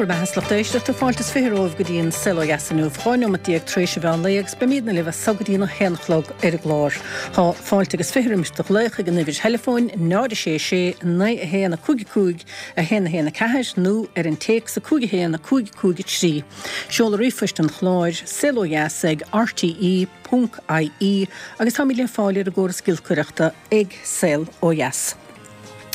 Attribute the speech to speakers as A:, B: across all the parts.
A: raibh maith agat a lucht éisteachta, fáilte is 20 romhaibh go dtí an Saol Ó Dheas inniu, 12 neomat tar éis an mheán lae agus beimidne libh as so go dtí an 1 a chlog ar an gclár. Tá fáilte agus 20 roimis do ghlaoch ag an uimhir theileafóin 0 6 6 9 1 5 5 1 1 4 nó ar an téacs 5 1 5 5 3. Seoladh ríomhphoist an chláir, saolodheas ag rte ponc ie agus táimid le fáil ar an gcóras giolcaireachta ag Saol Ó Dheas.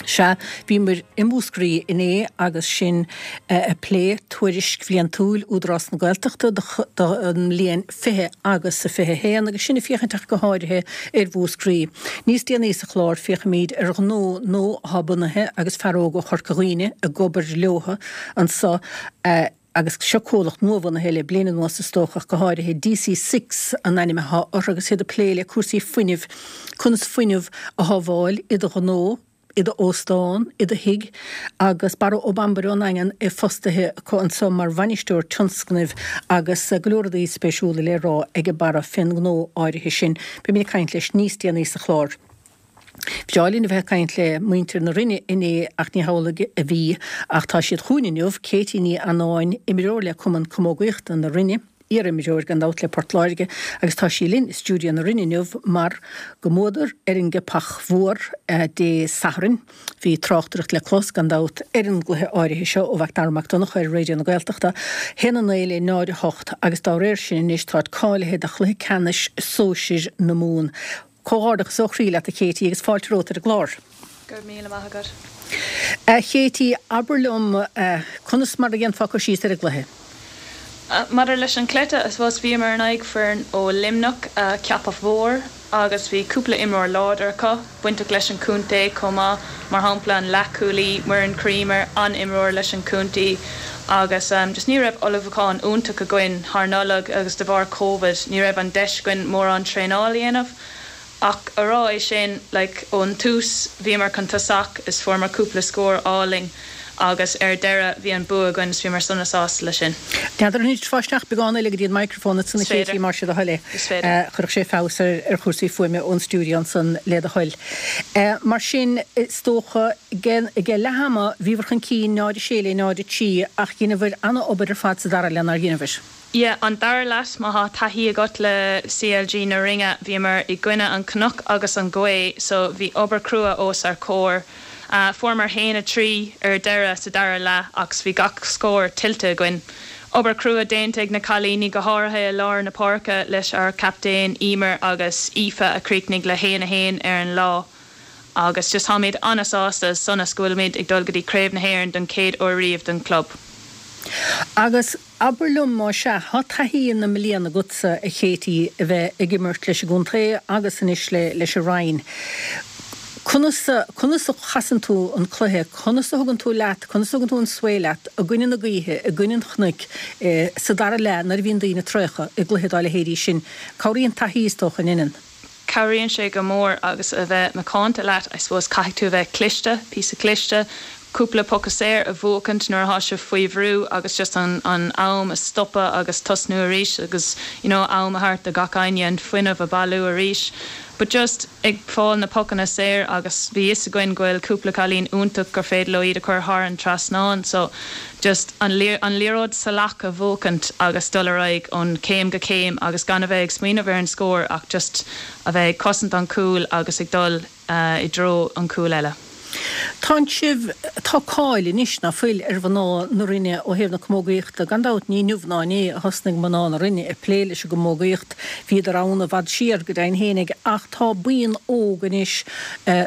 A: Sea, bhíomar i Múscraí inné agus sinn ag plé tuairisc bhliantúil Údarás na Gaeltachta don mbliain 20 agus 21 agus sinn ag féachaint ach go háirithe ar Mhúscraí. Níos déanaí sa chlár féachfaimid ar ghnó nua atá bunaithe agus fear óg ó Chorca Dhuibhne ag obair leo anso agus seo comhlacht nuabhunaithe le bliain anuas is dócha ach go háirithe, DC Six an ainm atá orthu agus iad ag plé le cúrsaí fuinnimh, conas fuinneamh a shábháil i do ghnó, i do óstán, i do thigh agus Barra Ó Bambaire ón nDaingean é fostaithe acu anso mar bhainisteoir tionscnaimh agus go leor rudaí spéisiúla le rá ag Barra fén ngnó áirithe sin. Beimid ag caint leis níos déanaí sa chlár. Bhreá linn a bheith ag caint le muintir na Rinne inné ach ní hamhlaidh a bhí ach tá siad chugainn inniu, Katie Ní Annáin, imreoir le Cumann Camógaíochta na Rinne, iar-imreoir gan dabht le Port Láirge agus tá sí linn i stiúideo na Rinne inniu mar go mbuadar ar an gCeapach Mhór Dé Sathairn. Bhí tráchtaireacht le clos gan dabht ar an gcluiche áirithe seo ó Mhac Dara Mac Donncha ar Raidió na Gaeltachta, 1-9 le 0-8 agus dá réir sin anois táid cáilithe do chluiche ceannais sóisir na Mumhan. Comhghairdeachas ó chroí leat a Katie agus fáilte romhat ar an gclár.
B: Go raibh míle maith agat.
A: A Katie, abair liom, conas mar a dhéanfá cur síos ar an gcluiche?
B: Maidir leis an chluiche, I suppose, bhíomar in aghaidh foireann ó Luimneach, Ceapach Mhór, agus bhí cúpla imreoir láidir acu, bainteach leis an chontae chomh maith, mar shampla an leathchúlaí, Muireann Creamer, an-imreoir leis an chontae agus just ní raibh ullmhúchán iontach againn thar Nollaig agus de bharr Covid ní raibh an deis againn mórán traenáil a dhéanamh. Ach a rá é sin, like, ón tús bhíomar chun tosach is fuaireamar cúpla scór álainn agus ar deireadh bhí an bua againn is bhíomar sona sásta leis sin.
A: N'fheadar an dtiocfá isteach beagán eile go dtí an microphone ansan a
B: Is féidir.
A: Katie más é do thoil é.
B: Is féidir.
A: Chuirfeadh sé feabhas ar chúrsaí fuaime ón stiúideo ansan le do thoil. Mar sin, is dócha, ag leath ama bhíobhair chun cinn 0-6 le 0-3 ach dheineabhair ana-obair ar fad sa dara leath nár dheineabhair?
B: Yeah, an dara leath, má thá taithí agat le CLG na Rinne, bhíomar i gcoinne an cnoc agus an ghaoth so bhí obair crua os ár comhair. Fuaireamar 1, 3 ar deireadh sa dara leath ach bhí gach scór tuillte againn. Obair crua déanta ag na cailíní go háirithe i lár na páirce leis ár captaen Emer agus Aoife a chríochnaigh le 1, 1 ar an lá. Agus just táimid an-sásta is sona go bhfuilimid ag dul go dtí Craobh na hÉireann don chéad uair riamh don chlub.
A: Agus abair liom, más ea, tá taithí na mblian agatsa, a Katie, a bheith ag imirt leis an gcontae agus anois leis an Rinn. Conas, conas a chasann tú an cluiche, conas a thugann tú leat, conas a thugann tú an svae leat i gcoinne na gaoithe, i gcoinne an chnoic, sa dara leath nuair a bhíonn daoine traochta i gcluiche dá leithéidí sin? Cabhraíonn taithí, is dócha, an ndeineann?
B: Cabhraíonn sé go mór agus a bheith macánta leat, I suppose, caithfidh tú a bheith cliste, píosa cliste, cúpla poca saor a bhuachaint nuair atá sibh faoi bhrú agus just an an am a stopadh agus tosnú arís agus you know am a thabhairt do gach éinne an fuinneamh a bailiú arís. But just ag fáil na pocanna saor agus bhí fhios againn go bhfuil cúpla cailín iontach gur féidir leo iad a chur thar an trasnán so just an an liathróid salach a bhuachaint agus dul ar aghaidh ón céim go céim agus gan a bheith ag smaoineamh ar an scór ach just a bheith ag cosaint an cúl agus ag dul i dtreo an cúl eile.
A: Tánn sibh, tá cáil anois, ná fuil, ar mhná na Rinne ó thaobh na camógaíochta. Gan dabht ní inniu ná inné a thosnaigh mná na Rinne ag plé leis an gcamógaíocht, bhíodar ann i bhfad siar, go deimhin fhéinig, ach tá buíon óg anois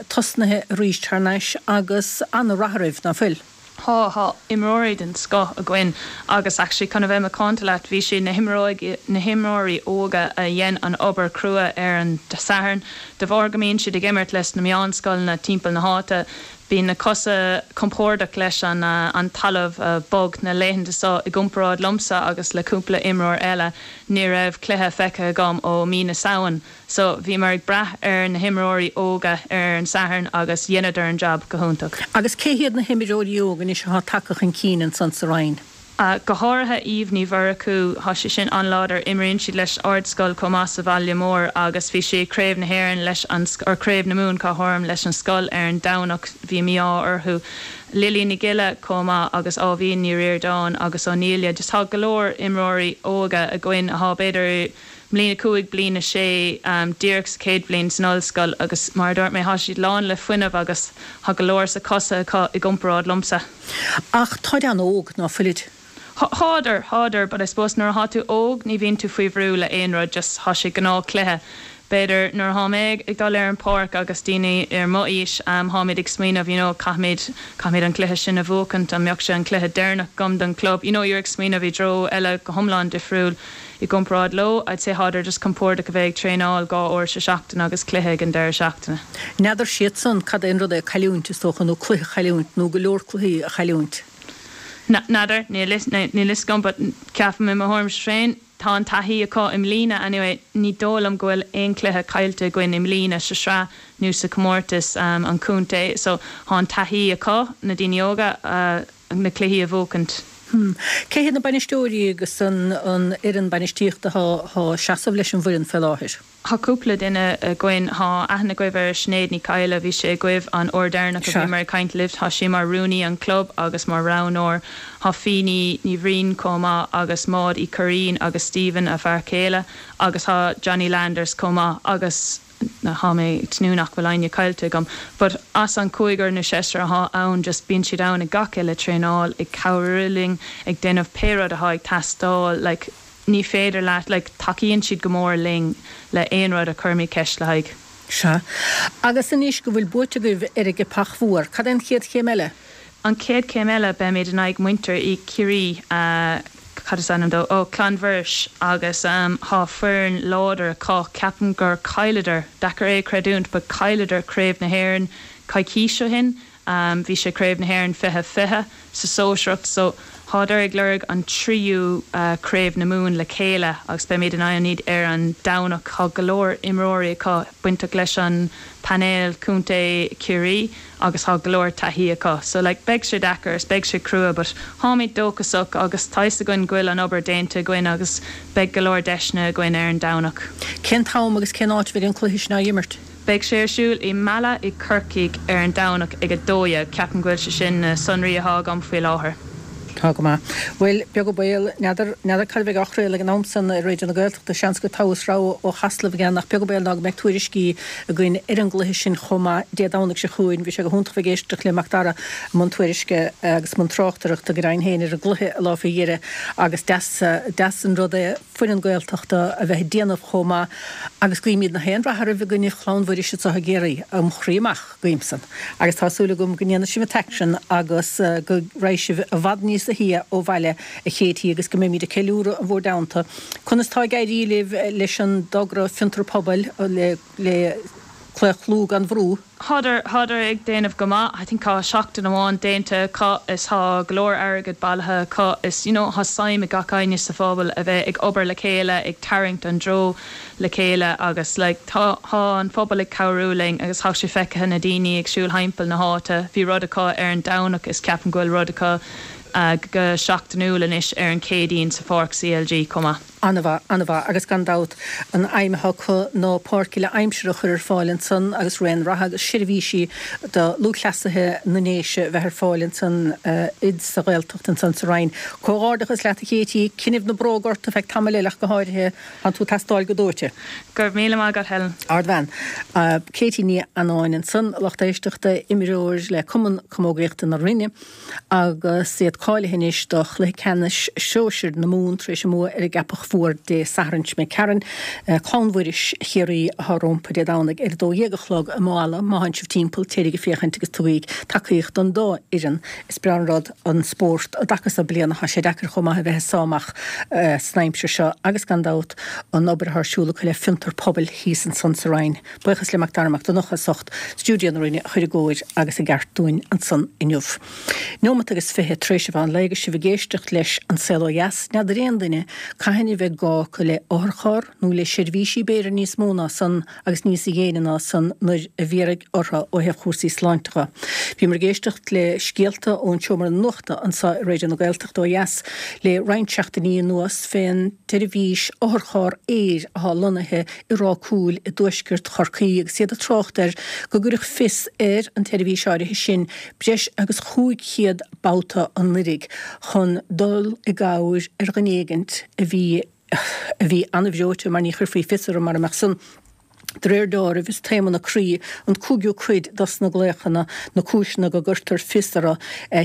A: tosnaithe arís thar n-ais agus ana-rath oraibh, ná fuil?
B: Tá, tá imreoirí den scoth againn agus actually chun a bheith macánta leat, bhí siad na himreoirí, na himreoirí óga a dhein an obair crua ar an Satharn. De bharr go mbíonn siad ag imirt leis na meánscoileanna timpeall na háite, bíonn na cosa compordach leis an an talamh bog na laethanta seo i gcomparáid liomsa agus le cúpla imreoir eile, ní raibh cluiche feicthe agam ó mí na Samhain. So, bhíomar ag brath ar na himreoirí óga ar an Satharn agus dheineadar an jab go hiontach.
A: Agus cé hiad na himreoirí óga anois atá tagtha chun cinn ansan sa Rinn?
B: Go háirithe Eve Ní Mhurchú, thá sí sin an-láidir, imríonn siad leis Ardscoil chomh maith sa bhaile mór agus bhí sí ag Craobh na hÉireann leis an, or Craobh na Mumhan cá háirim, leis an scoil ar an Domhnach, bhí mí-ádh orthu. Lily Ní Ghiolla chomh maith agus Áibhín Ní Ríordáin agus O'Nelia, just thá go leor imreoirí óga againn athá b'fhéidir mbliain 5, bliain 6, díreach sa chéad bhliain san ollscoil agus mar a dúirt mé, thá siad lán le fuinneamh agus thá go leor sa cosa acu i gcomparáid liomsa.
A: Ach táid an-óg, ná fuilid?
B: Thádar, thádar, but I suppose nuair athá tú óg ní bhíonn tú faoi bhrú le aon rud, just thá sé gnáth cluiche. B'fhéidir nuair athá mé ag dul ar an páirc agus daoine ar mo aois, tháimid ag smaoineamh, you know, caithfimid, caithfimid an cluiche sin a bhuachaint, an mbeadh sé an cluiche deireanach agam don club, you know, you're ag smaoineamh i dtreo eile go hiomlán difriúil. I gcomparáid leo, I'd say thádar just compordach a bheith ag traenáil 2 uair sa seachtain agus cluiche ag an deireadh seachtaine.
A: N'fheadar siadsan cad é an rud é cailliúint, is dócha, nó cluiche a chailliúint, nó go leor cluichí a chailliúint.
B: N'fheadar, níl fhios agam, but ceapaim i mo thuairimse féin, tá an taithí acu i mbliana anyway, ní dóigh liom go bhfuil aon cluiche caillte againn i mbliana sa sraith nó sa chomórtas an chontae, so thá an taithí acu, na daoine óga, na cluichí a bhuachaint.
A: Cé hiad na bainisteoirí agus an fhoireann bainistíochta atá ag seasamh leis an bhfoireann fé láthair?
B: Thá cúpla duine againn. Thá aithne agaibh ar Sinéad Ní Cadhla, bhí sí agaibh an uair deireanach a bhíomar ag caint libh. Thá sí mar rúnaí an club agus mar roghnóir. Thá Fíní Ní Bhriain chomh maith agus Maud Uí Churraoin agus Stephen, a fear céile, agus thá Johnny Landers chomh maith agus. Thá mé ag tnúth nach bhfuil éinne caillte agam. But as an cúigear nó seisear athá ann just bíonn siad ann ag gach uile traenáil, ag cabhrú linn, ag déanamh pé rud athá ag teastáil, like ní féidir leat, like tacaíonn siad go mór linn le aon rud a chuirimid ceist le haghaidh.
A: Sea. Agus anois go bhfuil buaite agaibh ar an gCeapach Mhór, cad é an chéad chéim eile?
B: An chéad chéim eile, beimid in aghaidh muintir i Ciarraí, cad is ainm dó, oh, Clann Mhuiris, agus thá foireann láidir acu, ceapaim gur chailleadar, deacair é a chreidiúint, but chailleadar Craobh na hÉireann coicís ó shin, bhí sé Craobh na hÉireann 2020 sa sóisearacht, so thádar ag lorg an tríú Craobh na Mumhan le chéile agus beimid in aghaidh iad ar an Domhnach, thá go leor imreoirí acu bainteach leis an painéal Contae Chiarraí. agus thá go leor taithí acu so like beidh sé deacair is beidh sé crua but tháimid dóchasach agus tá fhios againn go bhfuil an obair déanta againn agus beidh go leor deiseanna againn ar an Domhnach.
A: Cén t-am agus cén áit a bheidh an cluiche sin á imirt?
B: Beidh sé ar siúl i Mala i Corcaigh ar an Domhnach ag 12:00. Ceapaim go bhfuil sé sin na sonraí athá agam faoi láthair.
A: Tá go maith. Bhuel, beag an baol, n'fheadar, n'fheadar cad a bheidh á chraoladh ag an am san ar Raidió na Gaeltachta, seans gur togha is rogha ó Chasla a bheidh ann ach beag an baol ná go mbeidh tuairiscí againn ar an gcluiche sin chomh maith Dé Domhnaigh seo chugainn. Bhí sé go hiontach bheith ag éisteacht le Macdara i mbun tuairisce agus i mbun tráchtaireachta go deimhin féin ar an gcluiche an lá faoi dheireadh agus deas, deas an rud é foireann Gaeltachta a bheith ag déanamh chomh maith agus guímid na haon rath oraibh i gcoinne Chlann Mhuiris anseo i gCiarraí, óm chroí amach. Guím san. Agus tá súil agam go ndéanfaidh sibh an t-aicsean agus go raghaidh sibh i bhfad níosa shia ó bhaile, a Katie, agus go mbeimid ag ceiliúradh in bhur dteannta. Conas tá ag éirí libh leis an dtogra Fiontar Pobail le le Claochlú gan Bhrú?
B: Thádar, thádar ag déanamh go maith. I think thá seachtain amháin déanta acu is thá go leor airgead bailithe acu is you know thá suim ag gach éinne sa phobal a bheith ag obair le chéile, ag tarraingt an dtreo. le chéile agus like tá thá an phobal ag cabhrú linn agus thá sé feicthe na daoine ag siúl thimpeall na háite bhí rud acu ar an Domhnach is ceapaim go bhfuil rud acu go seachtainiúil anois ar an Chéadaoin sa pháirc CLG chomh maith.
A: An-mhaith, an-mhaith agus gan dabht an aidhm atá acu ná páirc uile aimsire a chur ar fáil ansan agus raon reatha agus seirbhísí do lúthchleasaithe na nDéise a bheith ar fáil ansan sa Ghaeltacht ansan sa Rinn. Comhghairdeachas leat a Katie, coinnibh na bróga ort ar feadh tamaill eile ach go háirithe. Tánn tú ag teastáil go dóite.
B: Go raibh míle maith agat, Helen.
A: Ardbhean. Katie Ní Annáin ansan, a lucht éisteachta, imreoir le Cumann Camógaíochta na Rinne agus iad cáilithe anois do chluiche ceannais sóisir na Mumhan tar éis a mbua ar an gCeapach Mhór Dé Sathairn seo imigh tharainn. Clann Mhuiris Chiarraí atá rompu Dé Domhnaigh ar 12 a chlog i Maigh Eala. Má thánn sibh timpeall, téiríg ag féachaint agus tugaíg tacaíocht don dá fhoireann. Is breá an rud an spórt an dtaca so bliana. Tá sé deacair chomh maith a bheith ag sá amach san aimsir seo agus gan dabht an obair atá ar siúl acu le Fiontar Pobail thíos ansan sa Rinn. Buíochas le Mac Dara Mac Donncha as ucht stiúideo na Rinne a chur i gcóir agus i gceart dúinn ansan inniu. Neomat agus 20 tar éis an mheán lae agus sibh ag éisteacht leis An Saol Ó Dheas. N'fheadar aon duine cathain a. a bheidh gá acu le otharcharr nó le seirbhísí b'fhéidir níos mó ná san agus níos déine ná san nuair a bhéarfaidh orthu ó thaobh chúrsaí sláinte dhe. Bhíomar ag éisteacht le scéalta ón tseomra nuachta anseo i Raidió na Gaeltachta ó dheas le roinnt seachtainí anuas fén tseirbhís otharcharr aeir atá lonnaithe i Ráth Cúil i dtuaisceart Chorcaí agus iad ag trácht air go gcuireadh fios ar an tseirbhís áirithe sin breis agus 500 babhta anuiridh chun dul i gcabhair ar dhuine éigint a bhí a bhí an-bhreoite mar ní chuirfí fios orthu mara mbeadh san. De réir deáraimh, is taomanna croí an cúigiú cuid dos na glaochanna, na cúiseanna go gcuirtear fios orthu,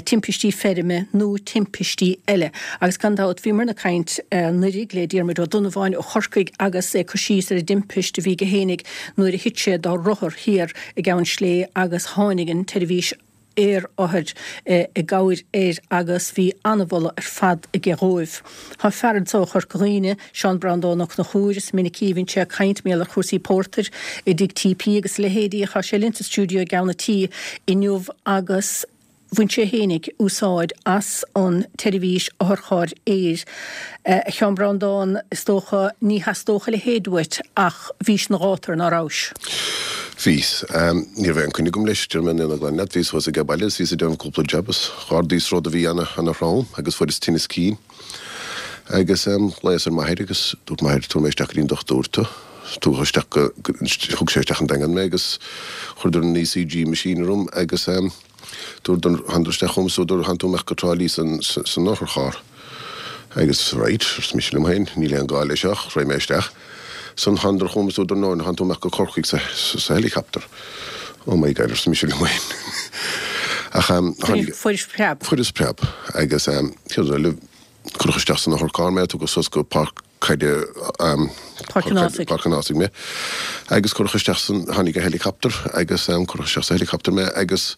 A: timpistí feirme nó timpistí eile. Agus gan dabht, bhíomarna ag caint anuiridh le Diarmuid Ó Donnabháin ó Chorcaigh agus é ag cur síos ar an dtimpist a bhí aige fhéinig nuair a thit sé dá rothar thiar i gCeann Slé agus tháinig an tseirbhís aerothair i gcabhair air agus bhí an-mholadh ar fad aige dhóibh. Tá fear anso ó Chorca Dhuibhne, Seán Breandán Ó Conchúir, is minicí a bhíonn sé ag caint mar gheall ar chúrsaí pórtair i dtigh TP agus a leithéidí. Tá sé linn sa stiúideo i gceann a' tí inniu agus bhain sé fhéinig úsáid as an tseirbhís otharchairr aeir. A Sheáin Breandán, is dócha ní theastódh a leithéid uait ach bhís ina ghátar, ná rabhais?
C: Bhíos. Ní raibh aon coinne agam leis, déarfaidh mé an fhírinne ghlan leat. Bhíos thuas age baile is bhíos ag déanamh cúpla jab is dh'ardaíos rud a bhí ana, ana throm agus fuaireas tinneas cinn. Agus ghlaos ar m'athair agus dúirt m'athair tabharfaidh mé isteach go dtí an dochtúir tú. Tugadh isteach go, thug sé isteach an Daingean mé agus chuireadar an ECG machine orm agus. Dúradar, thánadar isteach chugam is dúradar, Tánn tú imeacht go Trá Lí san otharcharr. Agus right, arsa mise liom féin, níl aon gá leis seo, raghaidh mé isteach. Ansan thánadar chugam is dúradar, no, tánn tú imeacht go Corcaigh sa helicopter. Oh my God, arsa mise liom féin. Ach tháinig.
A: Fuairis preab.
C: Fuaireas preab. Agus céard eile, cuireadh isteach san otharcharr mé, tugadh suas go Páirc Caide
A: Páirc an Ásaigh.
C: Páirc an Ásaigh mé agus cuireadh isteach san, tháinig an helicopter agus cuireadh isteach sa helicopter mé agus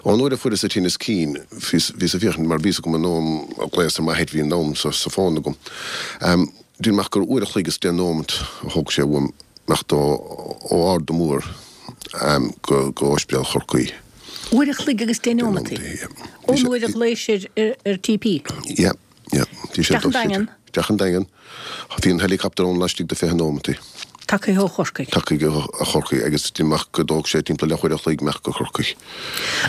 C: ón uair a fuaireas an tinneas cinn bhíos, bhíos ag féachaint mar bhí fhios agam an am a ghlaos ar m'athair bhí an am sa, sa fón agam. Déarfainn amach gur uair a chloig is deich nóimeat a thóg sé uaim imeacht ó, ó Ard an Mhóir go, go Ospidéal Chorcaí.
A: Uair a chloig agus deich nóimeataí? Ón uair a ghlaois ar, ar TP?
C: Yeah. Yeah.
A: Bhí sé Isteach an Daingean.
C: Isteach an Daingean. Bhí an helicopter ann laistigh de 20 nóimeataí.
A: Tagtha ó Chorcaigh.
C: Tagtha ó Chorcaigh agus déarfainn amach go dtóg sé timpeall leathuair a chloig imeacht go Corcaigh.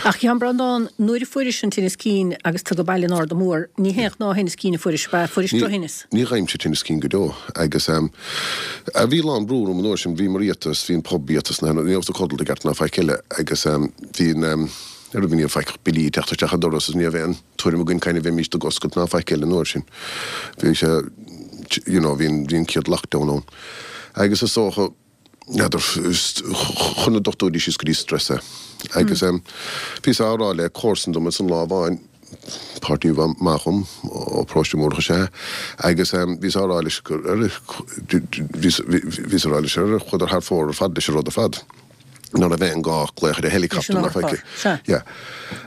A: Ach a Sheáin Breandán, nuair a fuairis an tinneas cinn agus tú ag baile in Ard an Mhór, ní haon ghnáth-thinneas cinn a fuairis, ab ea? Fuairis
C: drochthinneas. Ní fhaighimse tinneas cinn go deo agus bhí a lán brú orm an uair sin, bhí mar iata is bhí an pub iata is na, ní rabhas ag codlata i gceart ná faic eile agus bhí an, ar ní raibh faic ach billí ag teacht isteach an doras is ní raibh aon. tuairim againn cathain a bheimíst ag oscailt ná faic eile an uair sin. Bhí sé, you know, bhí an, bhí an chéad lockdown ann. Agus is dócha, n'fheadar, chuir na dochtúirí síos go dtí stress é. Agus em, bhíos á rá le comharsan dom ansan lá amháin, páirtí maith dhom, ó Paróiste Múrach is ea é, agus em, bhíos á rá leis gur, bhíos, bhíos á rá leis, ar chuadar thar fóir ar fad leis an rud ar fad. ná raibh aon gá glaoch ar an helicopter ná faic. Yeah.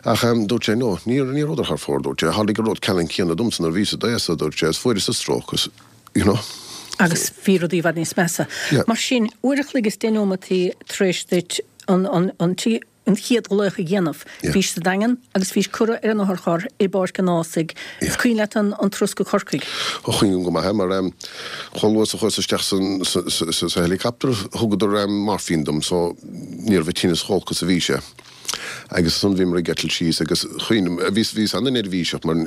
C: Ach dúirt sé, no, ní ní rabhadar thar fóir, dúirt sé, tharlaigh an rud ceannann céanna domsa nuair a bhíos i d'aois-sa, dúirt sé, is fuaireas-sa stróc is, you know.
A: Agus bhí rudaí i bhfad níos measa.
C: Yeah.
A: Mar sin, uair a chloig is deich nóimeataí tar éis duit an, an, an, an chéad ghlaoch a dhéanamh, bhís sa Daingean agus bhís curtha ar an otharcharr i bPáirc an Ásaigh. Is cuimhin leat an an turas go Corcaigh?
C: Ó cuimhním go maith é mar chomh luath is a chuas isteach san sa sa helicopter thugadar morphine dom so ní raibh an tinneas chomh holc is a bhí sé. Agus ansan bhíomar ag eitilt síos agus cuimhním bhíos bhíos ana-neirbhíseach mar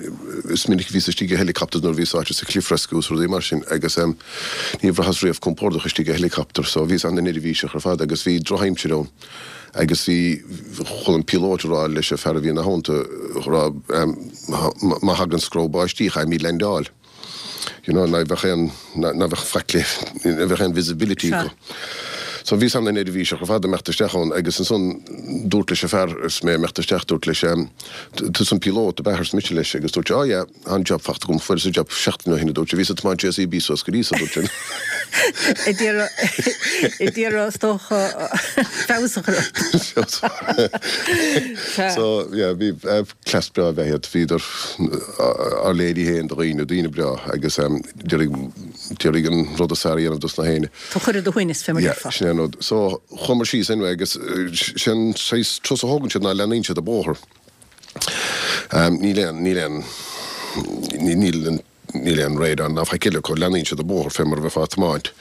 C: is minic a bhíos istigh i helicopters nuair a bhíos sáite sa cliff rescue is rudaí mar sin agus níor bhraitheas riamh compordach istigh i helicopter so bhíos ana-neirbhíseach ar fad agus bhí drochaimsir ann. Agus bhí, chuala an píolót ag rá leis an fear a bhí ina theannta, ag rá, má thagann screamh báistí, caithfimid leaindeáil. You know, ná bheadh aon, ná bheadh faic le, ná bheadh aon visibility acu. So bhíos ana-neirbhíseach ar fad ag imeacht isteach ann agus ansan dúrt leis an fear is mé ag imeacht isteach, dúrt leis, tusa an píolót, ab ea, arsa mise leis agus dúirt sé, oh yeah. Tá an job fachta agam, fuaireas an job seachtain ó shin, a dúirt sé. Bhíos ag tiomáint JCB suas go dtí so, a dúirt sé.
A: Ag iarraidh, is dócha, feabhas a chur ort.
C: So, yeah, bhí cleas breá ab ea iad. Bhíodar ár léirí féin do dhaoine, daoine breá agus d'iarraidh an rud is fearr a dhéanamh dos na héinne.
A: Tú a chur ar do shuaimhneas, fé mar
C: a déarfá. Yeah, sin é an rud. So, chuamar síos anyway agus sé an saghas turas a thógann siad ná leanaíonn siad an bóthar. Níl aon, níl aon, níl an. Níl aon radar ná faic eile acu, leanaíonn siad an bóthar fé mar a bheifeá ag tiomáint.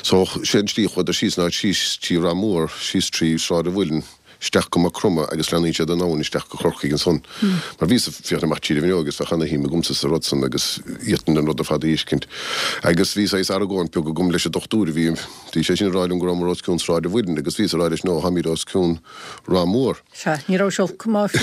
C: So, sé an tslí a chuadar síos ná síos trí Ráth Mór, síos trí Sráid an Mhuilinn, isteach go Maigh Chromtha agus leanaíonn siad an abhainn isteach go Corcaigh ansan. Mar bhíos ag féachaint amach tríd an bhfuinneog agus bheadh ana-shuim agamsa sa rud san agus d'fhéadfainn an rud ar fad a fheiscint. Agus bhí saghas argóint beag agam leis an dochtúir a bhí, bhí sé sin ag rá liom go rabhamar os cionn Sráid an Mhuilinn agus bhíos ag rá leis no, táimid os cionn Ráth Mór.
A: Sea, ní raibh sé olc go maith.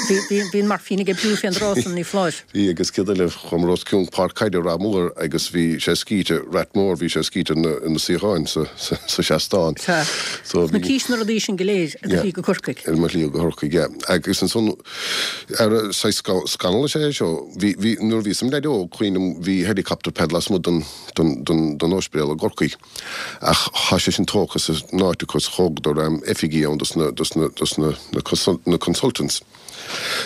A: Bhí, bhí an moirfín ag oibriú fén dtráth san, ní foláir.
C: Bhí, agus céard eile, chuamar os cionn Páirc Caide Ráth Mór agus bhí sé scíte, Rathmore, bhí sé scíte ar na suíocháin sa, sa seastán.
A: Sea. So bhí. Na cís na rudaí sin go léir ar do shlí go Corcaigh.
C: Ar mo shlí go Corcaigh, yeah. Agus ansan, ar saghas scannal is ea é seo, bhí, bhí, nuair a bhíos im leaid óg, cuimhním, bhí helicopter pad lasmuigh den, den, den, den ospidéal i gCorcaigh. Ach thá sé sin tógtha as an áit acu is thógadar oifigí ann dos na, dos na, dos na, na consultants.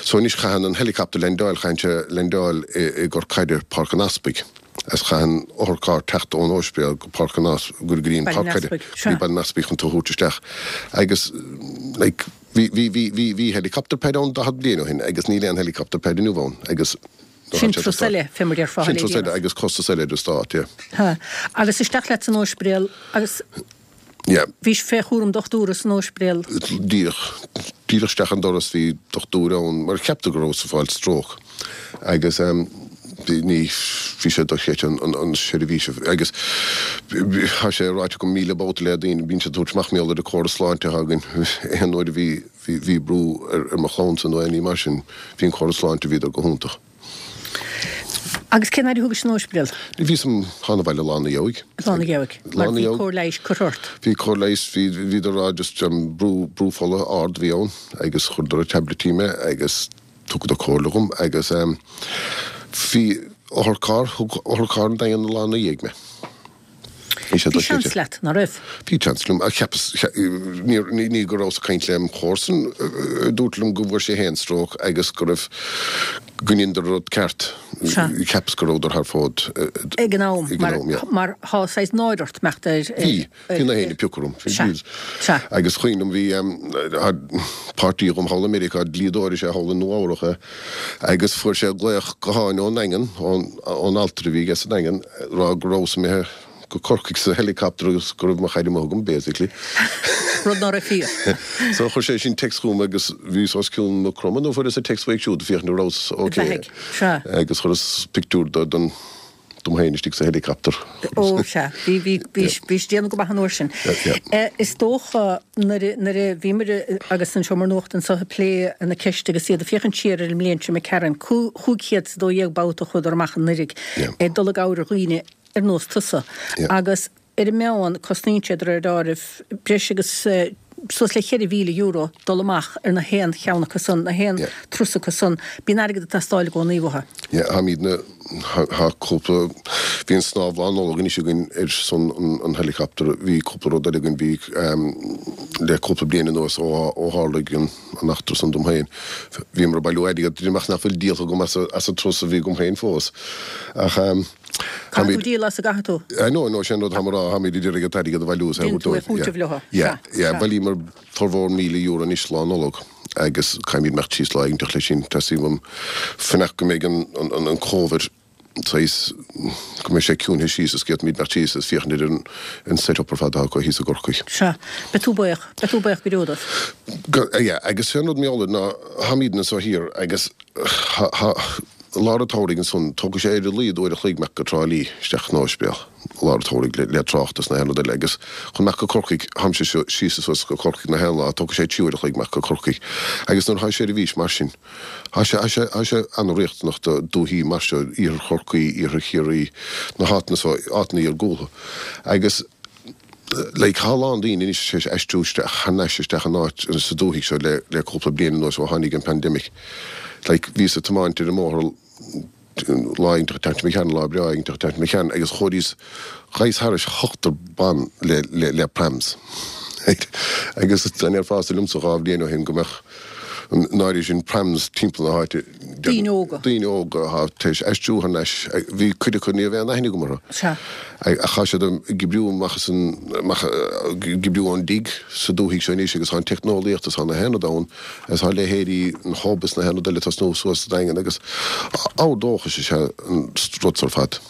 C: So anois chaitheann an helicopter leaindeáil, chaitheann sé leaindeáil i, i gCorr Caide, Páirc an Easpaig. Is chaitheann otharcharr teacht ón óispidéal go Páirc an Eas, go dtí an Páirc Caide, go dtí Baile an Easpaig chun tú a thabhairt isteach. Agus like bhí, bhí, bhí, bhí, bhí helicopter pad ann 40 bliain ó shin agus níl aon helicopter pad inniu ann agus,
A: Sin turas eile, fé mar déarfá,
C: Sin turas eile agus costas eile ar an stát, yeah.
A: Ha. Agus isteach leat san óispidéal agus
C: Yeah.
A: bhís fé chúram dochtúra san óispidéal.
C: Díreach, díreach isteach an doras bhí dochtúir ann mar cheapadar go rabhas ag fáil stroke agus ehm bhí, ní, bhí sé dochreidte an, an, an seirbhís agus tá sé ráite agam 1,000 babhta le daoine, bíonn siad ag tabhairt amach mar gheall ar an córas sláinte atá againn aon uair a bhí, Bhí, bhí brú ar, ar mo chlannsa nó aon ní mar sin. Bhí an córas sláinte, bhíodar go hiontach.
A: Agus cén fhaid a thógais san óispidéal?
C: Bhíos th'anam 'bhaile lá ina dhiaidh.
A: Lá ina dhiaidh. Mar bhí cóir leighis curtha ort?
C: Bhí cóir leighis, bhí, bhíodar a rá just brú, brú fola ard a bhí ann agus chuireadar ar taibleití mé agus thugadar comhairle dhom agus bhí otharcharr, thug otharcharr an Daingean lá ina dhiaidh mé.
A: Bhí seans leat, ná raibh?
C: Bhí seans liom, ach cheapas, ní go rabhas ag caint lem chomharsan a dúirt liom go bhfuair sé féin stróc agus go raibh, go ndeineadar an rud ceart. Cheapas go rabhadar thar fód
A: ag an am, mar tá saghas náire ort imeacht ar.
C: Bhí, bhí na héinne ag piocadh orm.
A: Sea, sea.
C: Agus cuimhin liom, bhí páirtí agam thall i Meiriceá, dlíodóir is ea thall i Nua Eabhrach é, agus fuair sé glaoch gutháin ón nDaingean, ón altra a bhí aige sa Daingean, rá go rabhas imithe go Corcaigh sa helicopter agus go raibh mo chaid amuigh agam, basically.
A: Rud ná raibh fíor.
C: So chuir sé sin text chugam agus bhíos os cionn Maigh Chromtha nó fuaireas an text uaidh siúd féachaint an rabhas ok.
A: Beathaigh. Sea.
C: Agus chuireas pictiúr de den dom féin istigh sa helicopter.
A: Ó sea. Bhí, bhí, bhí, bhís ag déanamh go maith an uair sin.
C: Yeah, yeah.
A: Is dócha nuair a, nuair a bhíomar agus an Seomra Nuachta anseo ag plé na ceiste agus iad ag féachaint siar ar an mbliain seo imigh tharainn, 512 babhta a chuadar amach anuraidh ag dul i gcabhair ar dhaoine ar nós tusa. Agus ar an meán, cosnaíonn sé de réir deáraimh breis agus suas le €4,000 dul amach ar na haon cheann acu san, na haon turas acu san. Bíonn airgead ag teastáil i gcónaí uathu.
C: Yeah, táimidne, tá cúpla, bhí an snámh Lá Nollag anois againn ar son an helicopter, bhí cúpla rud eile againn, bhí le cúpla bliain anuas ó tharlaigh an, an eachtra san dom féin. Bhíomar ag bailiú airgead, deirim ach nach bhfuil díolta agam as an turas a bhí agam féin fós. Ach
A: Caithfidh tú díol as an gcaithfidh tú?
C: I know, I know, sin an rud táim a rá, táimid ag iarraidh an t-airgead a bhailiú is é a
A: thabhairt dóibh. Déanann tú é chúiteamh leo.
C: Yeah, yeah, bhailíomar formhór €1,000 anois Lá Nollag agus caithfimid imeacht síos lá éiginteach leis sin. Teastaíonn uaim fanacht go mbeidh an Covid saghas, go mbeidh sé ciúinthe síos is go bhféadfaimid imeacht síos is féachaint ar an set up ar fad atá acu thíos i gCorcaigh.
A: Sea. Beidh tú buíoch. Beidh tú buíoch go deo dóibh.
C: Go, yeah, agus sé an rud mar gheall air ná táimidne anso thiar agus thá, thá, lár an tsamhraidh ansan, tógfaidh sé ar a laghad uair a chloig imeacht go Trá Lí isteach chun an ospidéil, lár an tsamhraidh le, le trácht is na haon rud eile agus chun imeacht go Corcaigh, tháimse síos is suas go Corcaigh na haon lá, tógfaidh sé trí uair a chloig imeacht go Corcaigh agus nuair atá seirbhís mar sin, Tá sé, tá sé, tá sé an-riachtanach do dúichí mar seo, iarthar Chorcaí, iarthar Chiarraí, na háiteanna so, áiteanna iargúltha. Agus like tá a lán daoine anois tar éis aistriú isteach, thar n-ais isteach in áit, sa dúthaigh seo le, le cúpla bliain anuas ó tháinig an pandemic. Like bhíos ag tiomáint ar an mbóthar lá éiginteach ag teacht mo cheann, lá breá éiginteach ag teacht mo cheann agus chuireas, ghabhas thairis ochtar ban le, le, le prams. Right? Agus dá ndéarfása liomsa dhá bhliain ó shin go mbeadh. An náire sin prams timpeall na háite.
A: Daoine óga.
C: Daoine óga atá tar éis aistriú thar n-ais. Bhí cuid acu ní raibh aon aithne agam orthu.
A: Sea.
C: Ach tá siad ag oibriú amach as an, amach, ag oibriú ón dtigh sa dúthaigh seo anois agus tá an teicneolaíocht is tá na haon rud ann agus tá leithéidí an Hub is na haon rud eile ag tosnú suas sa Daingean agus ábhar dóchais is ea an rud so ar fad.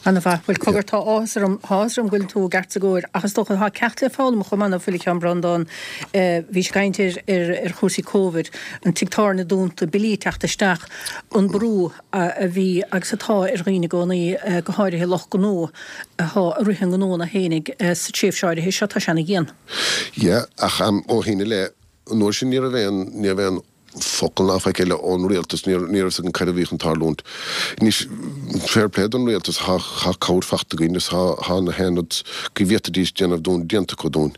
A: Ana mhaith. Bhuel, cogar, tá áthas orm, tá áthas orm go bhfuil tú i gceart is i gcóir, ach is dócha, tá ceacht le foghlaim chomh maith ná fuil, a Sheáin Breandán. Bhís ag caint ar, ar, ar chúrsaí Covid, an tigh tábhairne dúnta, billí ag teacht isteach, an brú a bhí agus atá ar dhaoine i gcónaí, go háirithe lucht gnó atá ag rith a ngnónna fhéinig sa tréimhse áirithe seo, tá sé ana dhian.
C: Yeah, ach ó shin i leith, an uair sin ní raibh aon, ní raibh aon focal ná faic eile ón rialtas, ní raibh fhios againn cad a bhí chun tarlúint. Anois, fair play don rialtas, thá cabhair fachta againn is thá na haon rud go bhféadfaidís déanamh dúinn déanta acu dúinn.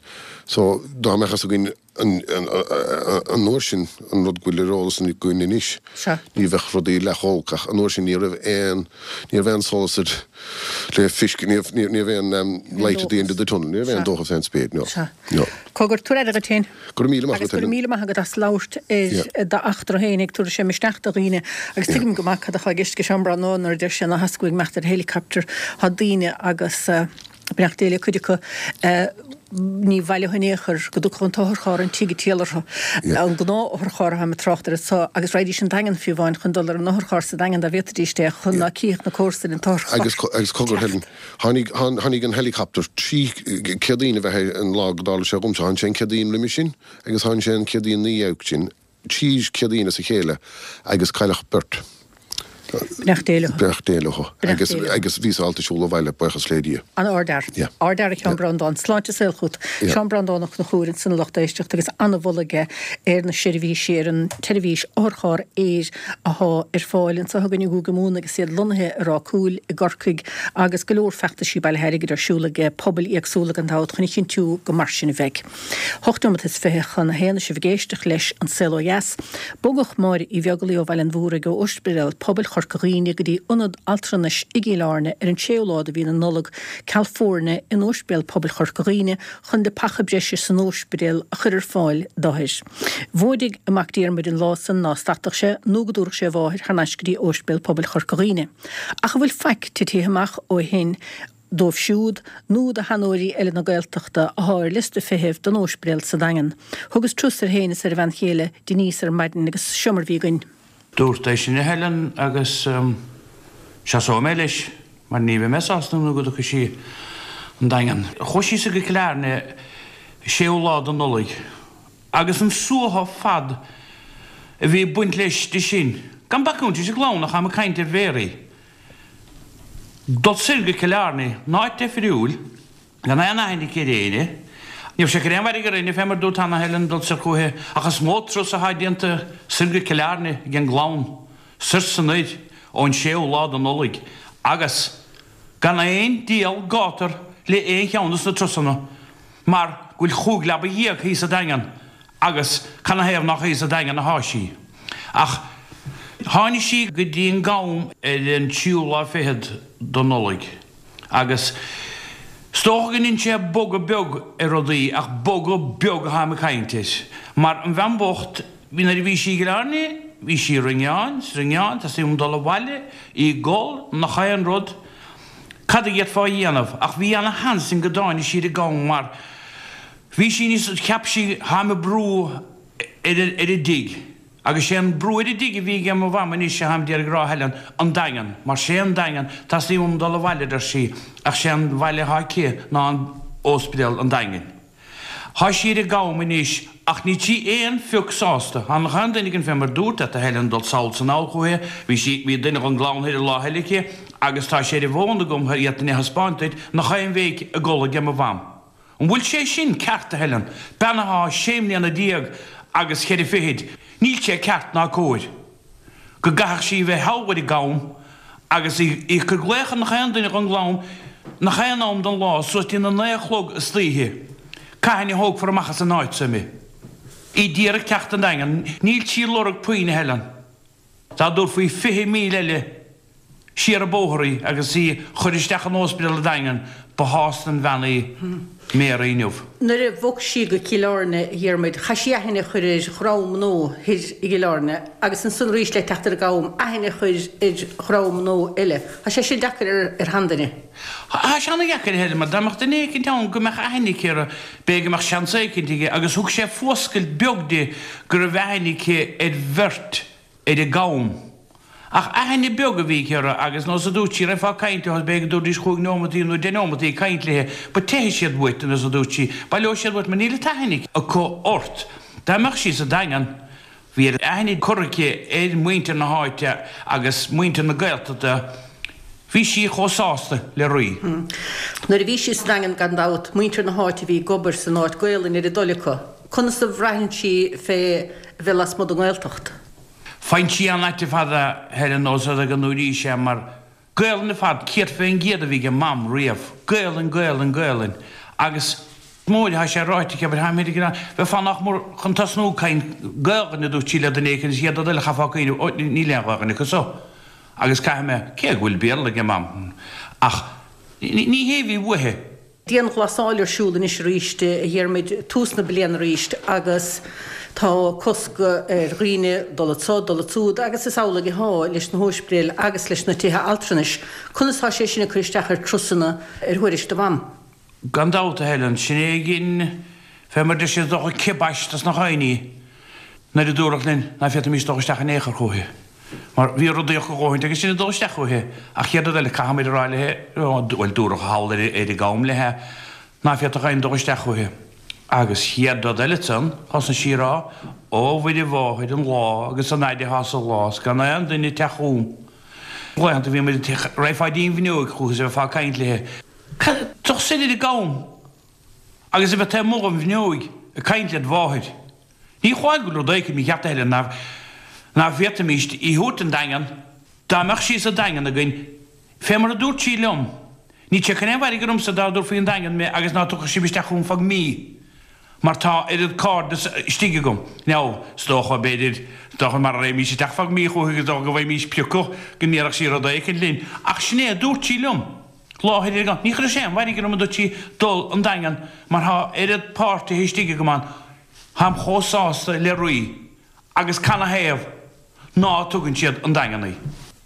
C: So, dá mbeadh fhios againn an uair sin an rud go bhfuil ar eolas againn anois, ní bheadh rudaí leath chomh holc ach an uair sin ní raibh aon, ní raibh aon solas ar le feiscint, ní raibh aon light at the end of the tunnel, ní raibh aon dóchas aon spéir, no. No.
A: Cogar, tabhair aire duit féin.
C: Go raibh míle maith
A: agat, Agus go raibh míle maith agat as labhairt ar d'eachtra féin ag tabhairt sé misneach do dhaoine agus tuigim go maith cad atá i gceist ag Seán Breandán nuair a deir sé ná theastaigh uaidh imeacht ar helicopter. Tá daoine agus beannacht Dé le cuid acu ní bhaileofaí in aon chor go dtiocfadh an t-otharcharr an tigh ag triall orthu. An gnáth-otharcharr atáim ag trácht air anso agus raghaidís an Daingean fiú amháin chun dul ar an otharcharr sa Daingean dá bhféadfaidís é chun ná cífeadh na comharsain an
C: t-otharcharr. Agus cogar Helen, Tháinig, tháinig an helicopter trí Céadaoin a bheith é an lá go dtarla sé dhomsa. Tháinig sé an Céadaoin roimhe sin agus tháinig sé an Céadaoin 'na dhiaidh sin, trí Céadaoin as a chéile agus cailleadh beirt.
A: Beannacht Dé leo.
C: Beannacht Dé leo. Agus, agus bhíos ábalta siúl abhaile, buíochas le Dia.
A: An ardfhear.
C: Yeah.
A: Ardfhear a Sheáin Breandán. Sláinte is saol chugat.
C: Yeah.
A: Seán Breandán Ó Conchúir ansan a lucht éisteachta agus an-mholadh aige ar na seirbhísí, ar an tseirbhís otharcharr aeir athá ar fáil anseo againn i gCúige Mumhan agus iad lonnaithe i Ráth Cúil i gCorcaigh agus go leor feachtaisí bailithe airgid ar siúl ag pobail éagsúla gan dabht chun a chinntiú go mar sin a bheidh. Hocht nóimeat is 20 chun a haon is sibh ag éisteacht leis An Saol Ó Dheas. Bogadh Máire Uí Bheaglaoi ó Bhaile an Mhúraigh ó Ospidéal Pobail Chorca Dhuibhne go dtí Ionad Altranais i gCill Airne ar an séú lá de mhí na Nollag ceal foirne in Ospidéal Pobail Chorca Dhuibhne chun leapacha breise san ospidéal a chur ar fáil d'othair. Mhóidigh a mac Diarmuid an lá san ná stadfadh sé nó go dtabharfadh sé a mháthair thar n-ais go dtí Óispidéal Pobail Chorca Dhuibhne. Ach an bhfuil faic titithe amach ó shin dóibh siúd nó do sheanóirí eile na Gaeltachta athá ar liosta feithimh don Óispidéal sa Daingean? Thugas turas air féin is ar a bhean chéile Denise ar maidin agus seo mar bhí againn.
D: Dúrt é sin a Helen agus seasóidh mé leis mar ní bheidh mé sásta nó go dtiocfaidh sí an Daingean. Chuaigh sí soir go Cill Airne séú lá de Nollaig agus an suaitheadh fad a bhí ag baint leis di sin, gan bacúint leis an gclann ach táim ag caint ar Mhéaraí, dul soir go Cill Airne, in áit deifriúil. Gan aon aithne aici ar éinne. Ní raibh sé ag cur aon mhairg ar éinne fé mar dúrt cheana Helen dul soir chúithi ach is mó turas athá déanta soir go Cill Airne ag an gclann, soir 's anoir ón séú lá de Nollaig agus gan aon diabhal gátar le aon cheann dos na turasanna mar go bhfuil chúig leaba dhéag thíos sa Daingean agus canathaobh nách thíos sa Daingean athá sí. Ach tháinig sí go dtí an gCam ar an tríú lá fichead de Nollaig. Agus is dócha go ndein sé bogadh beag ar rudaí, ach bogadh beag atháim ag caint air. Mar an bhean bhocht, bhí nuair a bhí sí i gCill Airne, bhí sí ag ringeáin, 's ringeáin, teastaíonn uaim dul abhaile, í ag gol, nach aon rud. Cad a d'fhéadfá a dhéanamh? Ach bhí ana sheans ann go dtáinig sí ar an gCam mar bhí sí níos, cheap sí, tháim ag brú ar an dtigh. Agus sé an brú ar an dtigh a bhí aige mo mham anois atháim d'iarraidh a rá Helen, an Daingean, mar sé an Daingean, teastaíonn uaim dul abhaile a deir sí, ach sé an bhaile athá aici ná an óspidéal an Daingin. Thá sí ar an gCam anois ach níl sí aon phioc sásta. Thá nach aon duine againn fé mar dúrt leat a Helen dul sall 's anall chúithi, bhí sí, bhí duine dhon gclann thoir an lá eile aici agus tá sé ar an bhfón agam d'fhéadfainn é a thaispeáint duit, nach aon bhéic ag gol aige mo mham. An bhfuil sé sin ceart, a Helen? Bean athá sé mbliana déag agus cheithre fichid, níl sé ceart ná cóir go gcaithfeadh sí bheith thall ar an gCam agus í ag cur glaoch ar nach aon duine dhon gclann nach aon am den lá suas dtí na naoi a chlog istoíche. Cathain a thógfar amach as an áit so mé? Í d'iarraidh teacht an Daingean. Níl sí ag lorg puinn, a Helen. Dá dtabharfaí 20,000 eile siar an bóthar í agus í chur isteach in óspidéal an Daingin. Ba shásta an bhean í Mary inniu.
A: Nuair a bhog sí go Cill Airne, a Dhiarmuid, chaith sí aithne a chur ar dhream nua thoir i gCill Airne agus ansan arís le teacht ar an gCam, aithne a chur ar dhream nua eile. Tá sé sin deacair ar sheanduine.
D: Tá sé ana-dheacair, a Helen, mar dá mbeadh duine éicint ann go mbeadh aithne aici air, b'fhéidir go mbeadh seans éicint aige agus thug sé fuascailt beag di go raibh aithne aici ar bheirt ar an gCam. Ach aithne beag a bhí aici orthu agus nós a dúirt sí, raghfá ag caint leo, b'fhéidir go dtabharfaidís chúig neomataí nó deich neomataí ag caint léi, but teithfidh siad uait, nós a dúirt sí, baileoidh siad uait mar níl an t-aithne acu ort. Dá mbeadh sí sa Daingean, bhí aithne curtha aici ar mhuintir na háite agus muintir na Gaeltachta, bhí sí chomh sásta le rí.
A: Nuair a bhí sí sa Daingean gan dabht, muintir na háite a bhí ag obair san áit, Gaolainn ar a dtoil acu. Conas a bhraitheann sí fé bheith lasmuigh den nGaeltacht?
D: Faigheann sí an-ait ar fad a Helen nós rud go ndúraís é mar Gaolainn ar fad 100% a bhí ag Mam riamh, Gaolainn, Gaolainn, Gaolainn agus mór atá sé ráite aici abair táim ag bheifeá nach mór chun tosnú ag caint Gaolainn a dúirt sí le duine éicint is iad uile chaithfeá cuimhneamh ó níl aon Ghaolainn acu so agus caithfidh mé cé go bhfuil Béarla ag Mam ach ní hé a bhí uaithi.
A: Dianghlasáil ar siúl anois arís, a Dhiarmuid, tús na bliana arís agus tá cosc ar dhaoine dul anso, dul ansúd agus is amhlaidh atá leis na hóispidéil agus leis na tithe altranais. Conas tá sé sin ag cur isteach ar turasanna ar thuairisc do Mham?
D: Gan dabht, a Helen, sin é a dhein fé mar deir siad is dócha kibosh dos na dhaoine nuair a dúradh linn ná féadfaimis dul isteach in aon chor chúithi. Mar bhí rudaí acu a dhóthaint agus sinn ag dul isteach chúithi. Ach chéad rud eile, caithfimid a rá léi, bhuel, dúradh thall ar an gCam léi, ná féadfadh éinne dul isteach chúithi. Agus chéad rud eile ansan, thosnaigh sí a rá, Ó, a Mhuire Mháthair, an lá agus an fhaid atá sa lá 's gan aon duine ag teacht chugam. Laethanta bhí muid ag, raghfá dtí'n bhfuinneoig chúithi is a bheifeá ag caint léi. Dul soir ar an gCam agus a bheith taobh amuigh den bhfuinneoig ag caint led mháthair. Ní hamháin go bhfuil rud éicint mícheart a Helen ná ná féadfaimíst í thabhairt 'on Daingean dá mbeadh sí sa Daingean againn fé mar a dúirt sí liom níl sé chun aon mhairg ormsa dá dtabharfaí 'on Daingean mé agus ná tiocfadh sibh isteach chugam feadh mí mar tá oiread cairdeas istigh agam. Now is dócha b'fhéidir is dócha mara raghaimís isteach feadh mí chúithi is dócha go bhfaighimís priocadh go ndéarfadh sí rud éicint linn ach sin é a dúirt sí liom. Láthair ar an Ní chuirfeadh sé aon mhairg orm a dúirt sí dul 'on Daingean mar tá oiread páirtithe istigh agam ann Táim chomh sásta le rí agus canathaobh ná tugann siad 'on Daingean í.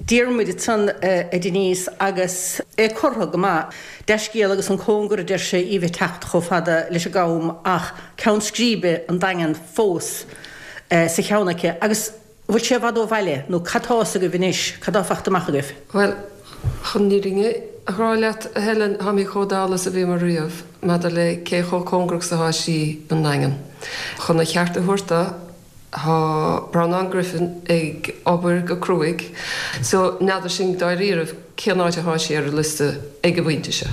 A: Diarmuid ansan a Denise agus é curtha go maith. Dea-scéal agus an cóngar a deir sé í bheith teacht chomh fada leis an gCam ach ceann scríbe an Daingean fós sa cheann aici agus An bhfuil sé i bhfad ó bhaile nó cad tá fhios agaibh anois, cad tá fachta amach agaibh?
E: Bhuel, chun an fhírinne a rá leat, a Helen, táimid chomh dall is a bhíomar riamh maidir le cé chomh cóngarach is atá sí don nDaingean. Chun a cheart a thabhairt dó, tá Breandán Griffin ag obair go cruaidh, so n'fheadar sinn dáiríribh cén áit atá sí ar an liosta ag an bpointe seo.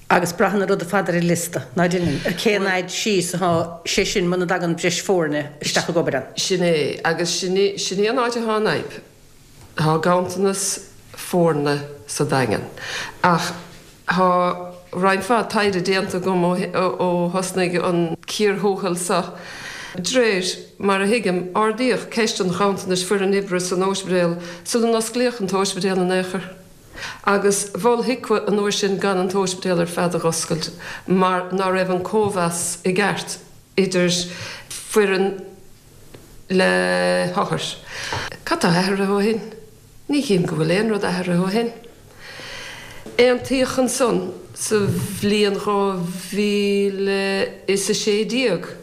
A: Agus braitheann an rud ar fad ar an liosta, ná deineann? Ar cén fhaid síos atá sé sin muna dtagann breis foirne isteach ag obair ann?
E: Sin é, agus sin í, sin í an áit atá an fhadhb. Tá ganntanas foirne sa Daingean. Ach tá roinnt mhaith taighde déanta agam ó ó thosnaigh an cíor thuathail seo. D'réir mar a thuigim, ardaíodh ceist an ghanntanais foireann oibre san óispidéal sula n-osclaíodh an t-óispidéal in aon chor. Agus mhol HIQA an uair sin gan an t-óispidéal ar fad a dh'oscailt mar ná raibh an cóimheas i gceart idir foireann le hothair. Cad tá athraithe ó shin? Ní chím go bhfuil aon rud athraithe ó shin. Aontaíodh ansan sa bhliain 2016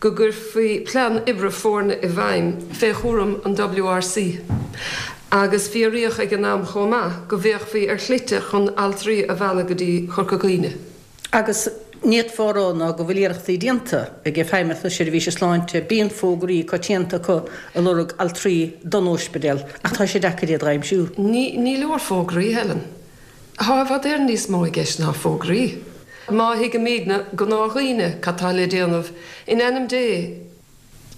E: go gcuirfí plean oibre foirne i bhfeidhm fé chúram an WRC agus fíoraíodh ag an am chomh maith go bhféachfaí ar shlite chun altraí a mhealladh go dtí Corca Dhuibhne.
A: Agus ní fhéadfá a rá ná go bhfuil iarrachtaí déanta ag Feidhmeannacht na Seirbhíse Sláinte, bíonn fógraí coitianta acu ag lorg altraí don óispidéal ach tá sé deacair iad dh'aimsiú.
E: Ní leor fógraí, Helen. Tá i bhfad Éireann níos mó i gceist ná fógraí. Má thuigimidne, gnáthdhaoine, cad tá le déanamh, in ainm Dé,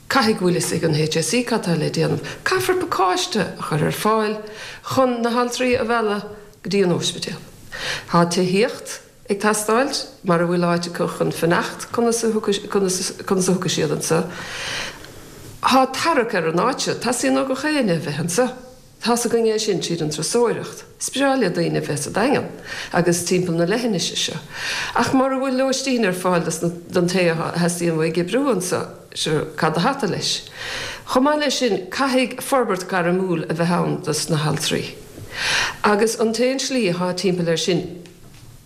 E: caithfidh go bhfuil fhios ag an HSE cad tá le déanamh. Caithfear pacáiste a chur ar fáil chun na haltraí a mhealladh go dtí an óispidéal. Tá tithíocht ag teastáil, mara bhfuil áit acu chun fanacht, conas a thiocfaidh siad anso? Tá tarrac ar an áit seo, teastaíonn ó gach éinne a bheith anso. Tá's againn é sin tríd an turasóireacht. Is breá le daoine bheith sa Daingean agus timpeall na leithinise seo. Ach mura bhfuil lóistín ar fáil don té a theastaíonn uaidh oibriú anso, sure, cad a hata leis? Chomh maith leis sin, caithfidh forbairt gairmiúil a bheith ann dos na haltraí. Agus an t-aon slí athá timpeall air sin,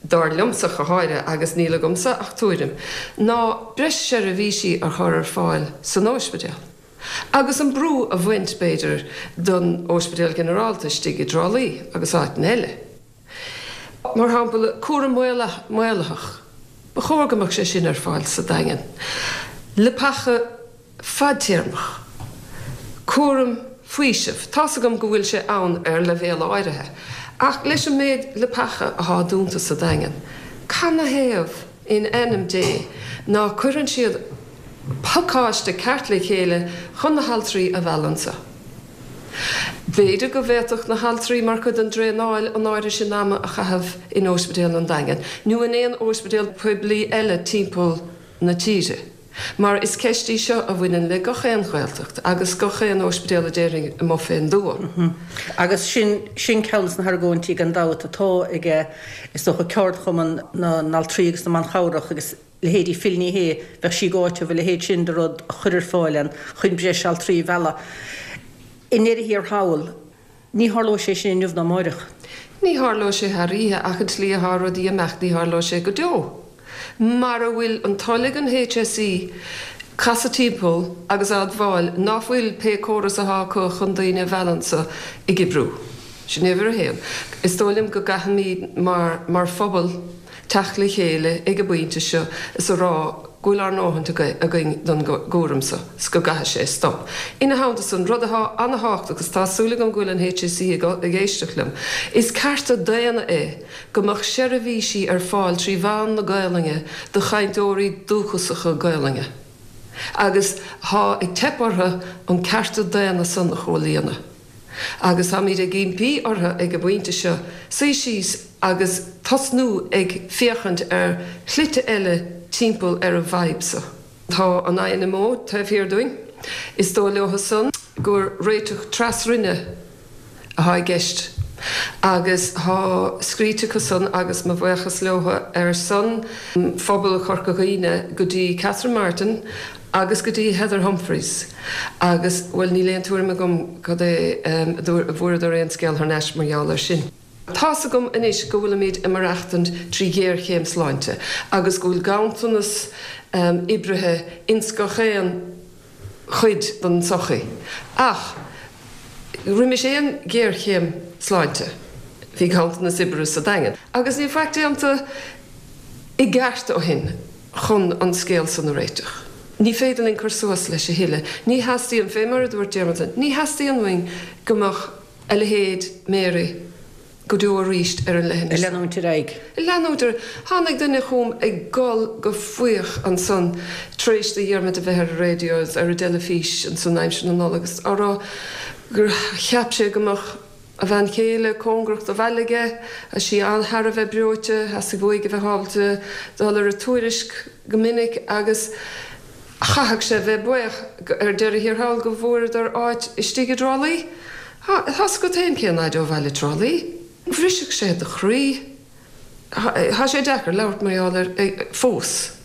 E: dar liomsa go háirithe, agus níl agamsa ach tuairim, ná breis seirbhísí a chur ar fáil san óispidéal. Agus an brú a bhaint, b'fhéidir, don Óispidéal Ginearálta istigh i dTrá Lí agus áiteanna eile. Mar shampla, cúram maolaitheach, ba chóir go mbeadh sé sin ar fáil sa Daingean. Leapacha fadtéarmach. Cúram faoisimh, tá's agam go bhfuil sé ann ar leibhéal áirithe, ach leis an méid leapacha athá dúnta sa Daingean, canathaobh in ainm Dé ná cuireann siad pacáiste ceart le chéile chun na haltraí a mhealladh anso. B'fhéidir go bhféadfadh na haltraí mar chuid den dtraenáil an áirithe sin ama a chaitheamh in Óispidéal an Daingin nó in aon óispidéal poiblí eile timpeall na tíre mar is ceist í seo a bhaineann le gach aon Ghaeltacht agus gach aon óispidéal a déarfainn amuigh fén dtuath.
A: Agus sin, sin ceann des na hargóintí gan dabht atá ag, is dócha, ceardchumann na n-altraí agus na mban chabhrach agus leithéidí Phil Ní Sheaghdha, bheadh sí ag áiteamh a leithéid sin de rud a chur ar fáil ann chun breis altraí a mhealladh. I ndeireadh thiar thall, ní tharlóidh sé sin inniu ná amáireach.
E: Ní tharlóidh sé thar oíche ach an tslí atá rudaí ag imeacht ní tharlóidh sé go deo. Mara bhfuil an toil ag an HSE casadh timpeall agus a admháil ná fuil pé córas athá acu chun daoine a mhealladh anso ag oibriú. Sin uimhir a haon. Is dóigh liom go gcaithfimid mar mar phobal teacht le chéile ag an bpointe seo is a rá go bhfuil ár ndóthaint againn don gcúram so 's go gcaithfidh sé stop. Ina theannta san, rud athá ana-thábhachtach agus tá súil agam go bhfuil an HSE ag éisteacht liom, is cearta daonna é go mbeadh seirbhísí ar fáil trí mheán na Gaolainne do chainteoirí dúchasacha Gaolainne agus thá ag teip orthu an cearta daonna san a chomhlíonadh. Agus táimid ag impí orthu ag an bpointe seo suí síos agus tosnú ag féachaint ar shlite eile timpeall ar an bhfadhb so. Tá an INMO taobh thiar dúinn. Is dóigh leo san gur réiteach tras-Roinne athá i gceist agus thá scríte acu san agus mo bhuíochas leo ar son phobal Chorca Dhuibhne go dtí Catherine Martin agus go dtí Heather Humphreys agus, bhuel, níl aon tuairim agam cad é an bhfuaireadar aon scéal thar n-ais mar gheall air sin. Tá's agam anois go bhfuilimid ag maireachtaint trí ghéarchéim sláinte agus go bhfuil ganntanas oibrithe ins gach aon chuid den tsochaí ach roimis aon ghéarchéim sláinte bhí ganntanas oibrithe sa Daingean agus níl faic déanta i gceart ó shin. chun an scéal san a réiteach. Ní féidir linn cur suas leis a thuilleadh. Ní theastaíonn, fé mar a dúirt Diarmuid, ní theastaíonn uainn go mbeadh a leithéid Mary go deo arís ar an leithinis.
A: Ag leanúint ar aghaidh.
E: Ag leanúint ar aghaidh. Tháinig duine chugam ag gol go fuíoch ansan tar éis do Dhiarmuid a bheith ar an raidió agus ar an dteilifís ansan aimsir na Nollag agus á rá gur cheap sé go mbeadh a bhean chéile cóngarach do bhaile aige, tá sí an-thar a bheith breoite, theastaigh uaidh a bheith ábalta dul ar an Tuairisc go minic agus chaithfeadh sé a bheith buíoch ar deireadh thiar thall go bhfuaireadar áit istigh i dTrá Lí. Tá's agat féin cén fhaid ó bhaile Trá Lí. Bhrisfeadh sé do chroí. Tá sé deacair labhairt mar gheall air fós.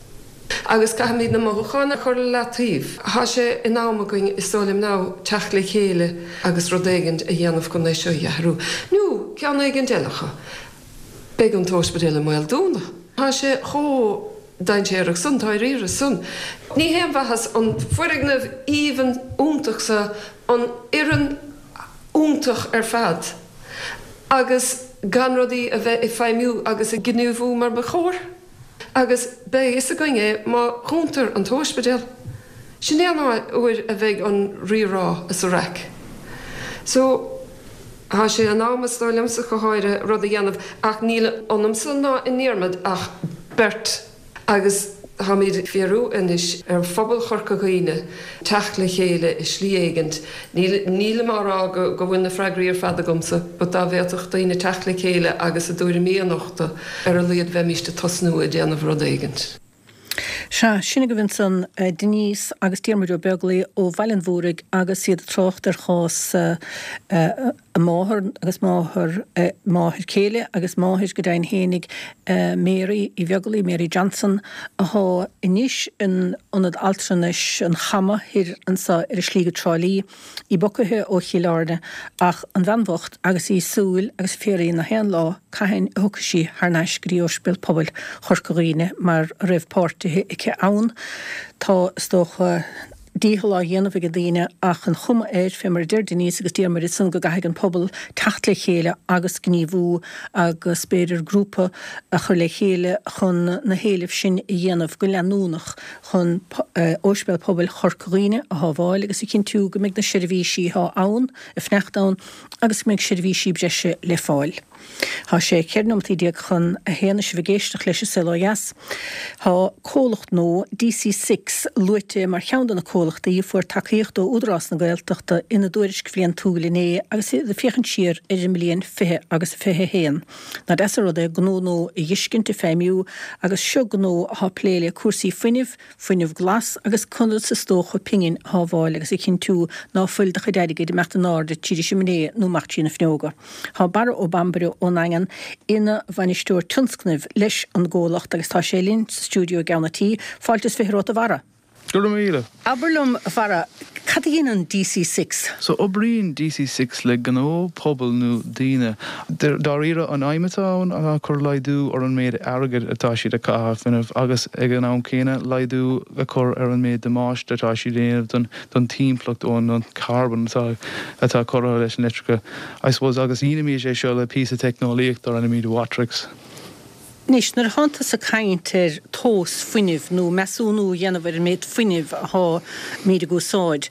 E: Agus caithfimid na mothúcháin a chur le leataobh. Tá sé in am againn, is dóigh liom now, teacht le chéile agus rud éigint a dhéanamh chun é seo a athrú. Nó ceann éigint eile acu. Beidh an t-óispidéal i mbaol dúnadh. Tá sé chomh dainséarach san, dáiríre san. Ní haon mhaitheas an foirgneamh aoibhinn iontach so, an fhoireann iontach ar fad. agus gan rudaí a bheith ag feidhmiú agus ag gníomhú mar ba chóir. Agus beidh a fhios againn é má dhúntar an t-óispidéal. Sin é an uair a bheidh an rírá is an raic. So, tá sé in am, is dóigh liomsa go háirithe, rud a dhéanamh ach níl ionamsa ná i nDiarmaid ach beirt. Agus táimid ag iarraidh anois ar phobal Chorca Dhuibhne teacht le chéile i slí éigint. Nílim á rá go bhfuil na freagraí ar fad agamsa, but dá bhféadfadh daoine teacht le chéile agus a dtuairimí a nochtadh, ar a laghad bheimíst ag tosnú ag déanamh rud éigint.
A: Sea, sin agaibh ansan Denise agus Diarmuid Ó Beaglaoi ó Bhaile an Mhúraigh agus iad ag trácht ar chás a máthar agus máthair, máthair céile agus máthair go deimhin fhéinig, Mary Uí Bheaglaoi, Mary Johnson, athá anois in Ionad Altranais an Chama thoir anso ar an slí go Trá Lí. Í bogtha ó Chill Airne ach an bhean bhocht agus í ag súil agus ag fiafraí na haon lá cathain a thiocfaidh sí thar n-ais go dtí Ospidéal Pobail Chorca Dhuibhne mar a raibh páirtithe aici ann. Tá, is dócha, dícheall á dhéanamh ag daoine ach an chuma air, fé mar a deir Denise agus Diarmuid ansan, go gcaithfidh an pobal teacht le chéile agus gníomhú agus b'fhéidir grúpa a chur le chéile chun na héilimh sin a dhéanamh go leanúnach. chun Ospidéal Pobail Chorca Dhuibhne a shábháil agus a chinntiú go mbeidh na seirbhísí atá ann ag fanacht ann agus go mbeidh seirbhísí breise le fáil. Tá sé 14 nóimeataí chun a haon is sibh ag éisteacht leis an Saol Ó Dheas. Tá comhlacht nua, DC Six, luaite mar cheann de na comhlachtaí a fuair tacaíocht ó Údarás na Gaeltachta ina dtuairisc bhliantúil inné agus iad ag féachaint siar ar an mbliain 20 agus 21. Nach deas an rud é gnó nua a dh'fheiscint ag feidhmiú agus seo gnó athá plé le cúrsaí fuinnimh, fuinneamh glas agus conas is dócha pingin a shábháil agus a chinntiú ná fuil do chuid airgid ag imeacht in airde tríd an simné nó amach trí na fuinneoga. Tá Barra Ó Bambaire ón nDaingean ina bhainisteoir tionscnaimh leis an gcomhlacht agus tá sé linn sa stiúideo i gCeann a' Tí. Fáilte is 20 romhat a Bharra.
F: Go raibh míle.
A: Abair liom, a Bharra, cad a dhéanann DC Six?
F: So, oibríonn DC Six le gnó, pobal nó daoine. Dáiríre, an aidhm atá ann ná cur laghdú ar an méid airgid atá siad ag caitheamh ar fuinneamh agus ag an am céanna laghdú a chur ar an méid damáiste atá siad a dhéanamh don timpeallacht ón carbon atá atá curtha leis an leictreachas, I suppose. Agus dhéanaimid é seo le píosa teicneolaíocht dar ainm Watrix.
A: Anois, nuair atánn tusa ag caint ar tomhas fuinnimh nó measúnú a dhéanamh ar an méid fuinnimh atháimid ag úsáid,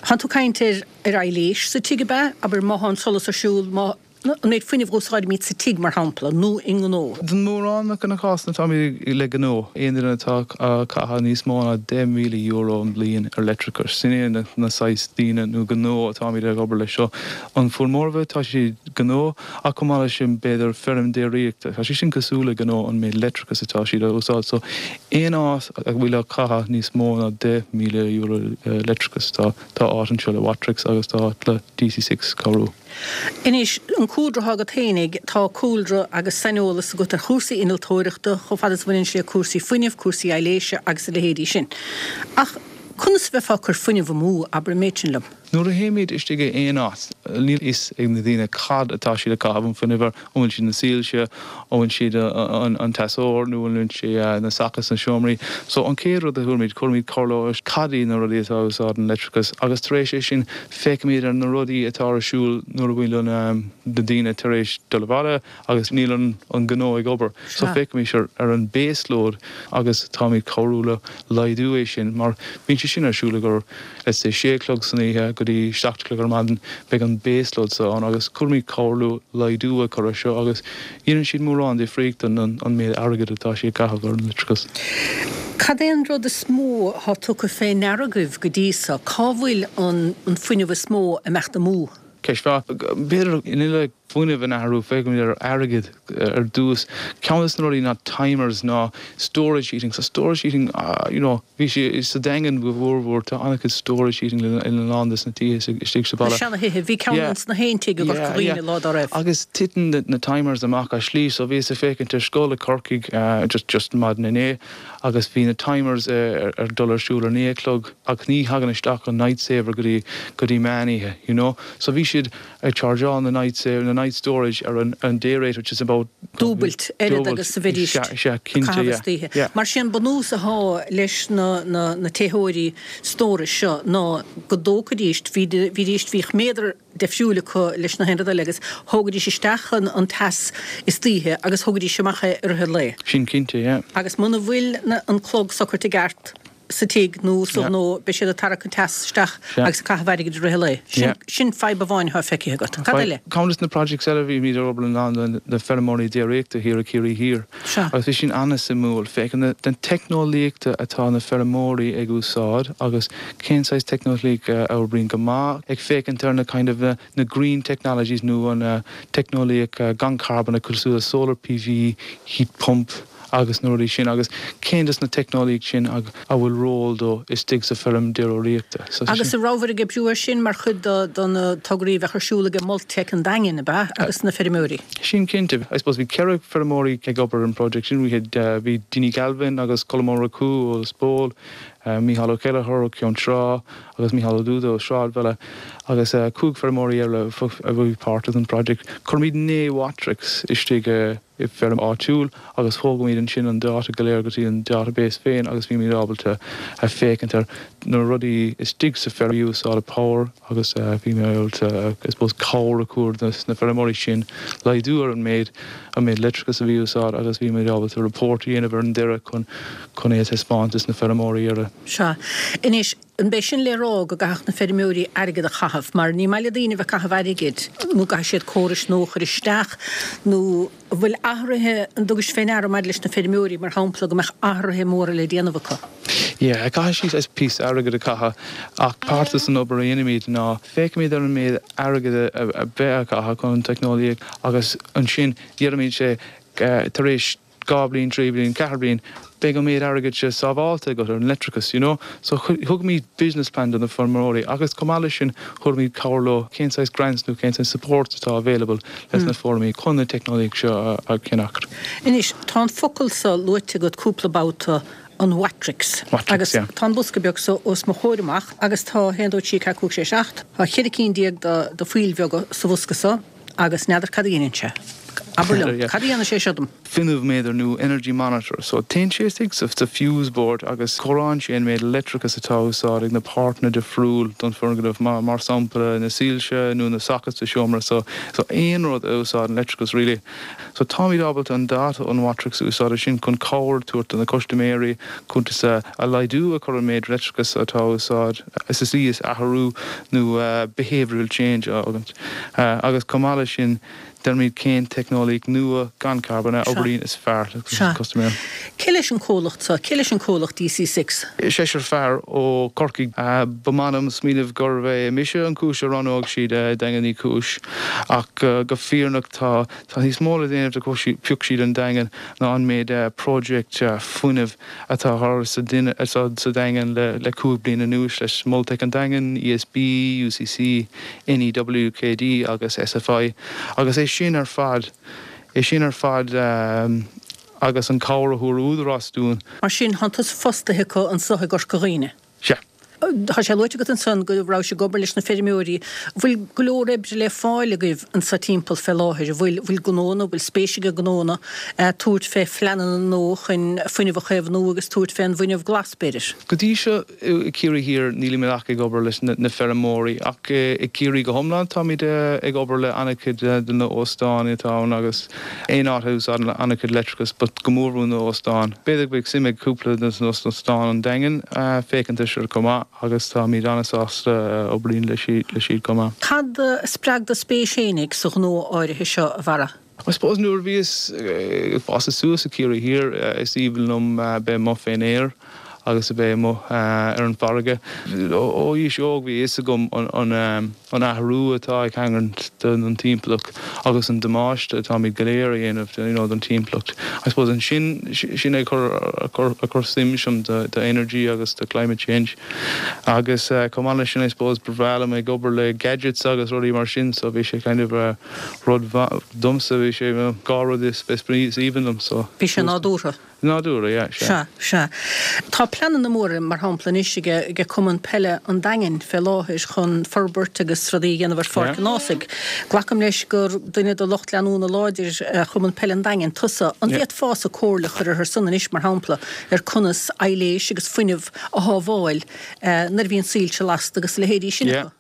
A: thánn tú ag caint ar ar aibhléis sa tigh, ab ea? Abair, má thá an solas ar siúl, má, an méid fuinnimh a úsáidimid sa tigh, mar shampla, nó i ngnó.
F: Don mórán de na cásanna táimid le gnó, aon duine atá ag caitheamh níos mó ná €10,000 an bhliain ar leictreachas, sin é na saghas daoine nó gnó atáimid ag obair leis seo. An formhór tá siad gnó. Ach chomh maith leis sin, b'fhéidir feirm déiríochta, tá sé sin cosúil le gnó an méid leictreachas atá siad a úsáid. So, aon áit a bhfuil ag caitheamh níos mó ná €10,000 leictreachas, tá tá áit anseo le Watrix agus tá áit le DC Six cabhrú.
A: Anois, an cúlra atá agat fhéinig, tá cúlra agus saineolas agat ar chúrsaí innealtóireachta, chomh fada is a bhaineann sé le cúrsaí fuinnimh, cúrsaí aibhléise agus a leithéidí sin. Ach conas a bheifeá ag cur fuinneamh amú, abair an méid sin liom?
F: Nuair a théimid istigh i aon áit, níl a fhios ag na daoine cad atá siad ag caitheamh an fuinnimh air, an bhfuil siad na soilse, an bhfuil siad an teasóir nó an bhfuil sé na sockets sna seomraí. So an chéad rud a chuirimid, cuirimid comhairle cad iad na rudaí atá ag úsáid an leictreachas agus tar éis é sin féachaimid ar na rudaí atá ar siúl nuair a bhfuil na daoine tar éis dul abhaile agus níl an gnó ag obair. So féachaimid ar an base load agus táimid cabhrú le laghdú é sin mar bíonn sé sin ar siúl ag let's say sé a chlog san oíche go dtí 7 a chlog ar maidin, beidh an base load so ann agus cuirimid comhairle laghdú a chur ar seo agus dhéanann siad mórán difríocht don an méid airgid atá siad ag caitheamh ar an leictreachas.
A: Cad é an rud is mó atá tugtha fé ndeara agaibh go dtí so? Cá bhfuil an fuinneamh is mó ag imeacht amú?
F: Ceist mhaith. B'fhéidir in uile fuinneamh a athrú, féachaimid ar airgead ar dtús. Ceann de na rudaí ná timers ná storage heating. So storage heating, you know, bhí sé sa Daingean go mhórmhór, tá an-chuid storage heating in a lán de na tithe istigh sa
A: bhaile. Na seana-thithe, bhí ceann ins na haon tigh i gCorca Dhuibhne lá dá raibh.
F: Agus titeann na timers amach as slí. So bhíos ag féachaint ar scoil i Corcaigh just just maidin inné agus bhí na timers ar dul ar siúl ar 9 a chlog ach ní thagann isteach an night saver go dtí go dtí meán oíche, you know. So bhí siad ag chargeáil na night saver, na night storage ar an an day rate which is about
A: dúbailt oiread agus a bheidís ag caitheamh istoíche. Mar sin bunús atá leis na na na téitheoirí stórais seo ná go dtógfaidís, bhídís, bhíodh méadar deifriúil acu leis na haon rud eile agus thógaidís isteach an an teas istoíche agus thógaidís amach é i rith an lae.
F: Sin cinnte, yeah.
A: Agus muna bhfuil na an clog socraithe i gceart sa tigh nó sa ghnó, beidh siad ag tarrac an teas isteach agus ag caitheamh airgid i rith an lae. Sin, sin fadhb amháin atá feicthe agat. Cad eile?
F: Ceann de na projects eile, bhímid ag obair le lán de na feirmeoirí déiríochta thiar i Ciarraí Thiar agus bhí sin an-suimiúil, féachaint na teicneolaíochta atá na feirmeoirí ag úsáid agus cén saghas teicneolaíocht a oibríonn go maith, ag féachaint ar na kind of na green technologies nó an teicneolaíocht gan carbon cosúil le solar PV, heat pump. agus na rudaí sin agus cén dos na teicneolaíocht sin a bhfuil ról dó istigh sa feirm déiríochta.
A: So Agus an rabhabhair ag oibriú air sin mar chuid de na tograí a bheadh ar siúl ag Multec an Daingin, ab ea, agus na feirmeoirí?
F: Sin cinnte. I suppose bhí 4 feirmeoirí ag obair ar an project sin. We had, bhí Dinny Galvin agus Colm Ó Murchú ó Lios Póil, Mícheál Ó Ceilleachair ó Ceann Trá agus Mícheál Ó Dúda ó Sráidbhaile agus 5 feirmeoirí eile a bhí páirteach den project. Chuirimid 9 Watrix istigh i i bhfeirm áitiúil agus thógaimid ansin an dáta go léir go dtí an database féin agus bímid ábalta a féachaint ar na rudaí istigh sa feirm a úsáideann power agus bímid ábalta I suppose cabhair a chur dos na feirmeoirí sin laghdú ar an méid an méid leictreachas a bhí úsáid agus bímid ábalta report a dhéanamh ar an deireadh chun chun é a taispeáint dos na feirmeoirí ar a
A: Sea. Anois, An b'é sin le rá go gcaithfeadh na feirmeoirí airgead a chaitheamh? Mar ní maith le daoine a bheith ag caitheamh airgid, nó go gcaithfidh siad córais nua a chur isteach, nó an bhfuil athruithe, an dtugais fé ndeara maidir leis na feirmeoirí, mar shampla, go mbeadh athruithe móra le déanamh acu?
F: Yeah, caithfidh siad píosa airgid a chaitheamh ach páirt den obair a dhéanaimid ná féachaimid ar an méid airgid a bheith á chaitheamh chun an teicneolaíocht agus ansin deirimid sé tar éis 2 bliain, 3 bliain, 4 bliain, beidh an méid airgid seo sábháilte agat ar an leictreachas, you know. So thugaimid business plan do na feirmeoirí agus chomh maith leis sin thabharfaimid cabhair leo cén saghas grants nó cén saghas support atá available leis na feirmeoirí chun na teicneolaíocht seo a cheannacht.
A: Anois, tá an focal so luaite agat cúpla babhta, an Watrix.
F: Watrix,
A: Agus
F: yeah.
A: tá an bosca beag so os mo chomhair amach agus tá, 1, 2, 3, 4, 5, 6, 7, tá cheithre cinn de de phoill bheaga sa bhosca so. Agus n'fheadar cad a dhéanann sé. Abair liom, cad a dhéanann sé seo dom?
F: Fuinneamh-méadar nó energy monitor. So téann sé istigh sa fuse board agus comhaireann sé an méid leictreachas atá á úsáid ag na páirteanna difriúil don foirgneamh, mar sampla na soilse nó na sockets sa seomra. So so aon rud a úsáideann leictreachas really. So táimid ábalta an data ón Watrix a úsáid ansin chun cabhair a tabhairt do na custaiméirí cuntas a laghdú a chur an méid leictreachas atá á úsáid sa tslí is athrú nó behavioural change a fhágaint. Agus chomh maith leis sin, deirimid cén teicneolaíocht nua gan carbón a oibríonn is fearr le custaiméir.
A: Cé leis an comhlacht seo? Cé leis an comhlacht DC6?
F: Seisear fear ó Chorcaigh. Ba maith liom smaoineamh gurbh é mise an chúis a roghnódh siad Daingean Uí Chúis ach go fírinneach tá tá níos mó le déanamh de phioc siad an Daingean ná an méid project fuinnimh atá thar sa sa Daingean le 5 bliana anuas leis Multec an Daingean, ESB, UCC, NEWKD agus SFI agus é sin ar fad, é sin ar fad agus an cabhair a thabhair Údarás dúinn.
A: Mar sin, thánn tusa fostaithe acu anso i gCorca Dhuibhne.
F: Sea.
A: Tá sé luaite agat ansan go rabhais ag obair leis na feirmeoirí. An bhfuil go leor oibre le fáil agaibh anso timpeall fé láthair? An bhfuil, bhfuil gnónna, bhfuil spéis ag gnónna tabhairt fé phleananna nua chun fuinneamh a chaomhnú agus tabhairt fé an bhfuinneamh glas, b'fhéidir?
F: Go dtí seo i Ciarraí Thiar nílimid ach ag obair leis na feirmeoirí ach i gCiarraí go hiomlán táimid ag obair le an-chuid de na óstáin atá ann agus aon áit a úsáideann an-chuid leictreachas but go mórmhór na óstáin. B'fhéidir go mbeadh suim ag cúpla de na óstáin an Daingean féachaint air seo chomh maith agus táimid an-sásta obair le siad chomh maith.
A: Cad a spreag do spéis fhéinig sa ghnó áirithe seo, a Bharra?
F: I suppose nuair a bhíos ag fás suas i Ciarraí Thiar is aoibhinn liom bheith amuigh fén aer agus a bheith amuigh ar an bhfarraige. Ó aois óg bhí a fhios agam an an athrú atá ag tarlúint don timpeallacht agus an damáiste atáimid go léir a dhéanamh you know don timpeallacht. I suppose ansin sin é a chuir suim ionam do energy agus do climate change agus chomh maith leis sin I suppose ba bhreá liom ag obair le gadgets agus rudaí mar sin so bhí sé kind of rud domsa bhí sé dhá rud is aoibhinn liom so.
A: Bhí sé nádúrtha.
F: Nádúrtha, yeah,
A: sea. Sea, sea. Tá pleananna móra, mar shampla, anois ag Cumann Peile an Daingin fé láthair chun forbairt agus rudaí a dhéanamh ar Pháirc an Ághasaigh. Glacaim leis gur duine de lucht leanúna láidir Chumann Peile an Daingin tusa. An bhféadfása comhairle a chur orthu san anois, mar shampla, ar conas aibhléis agus fuinneamh a shábháil nuair a bhíonn soilse lasta agus a leithéidí sin acu?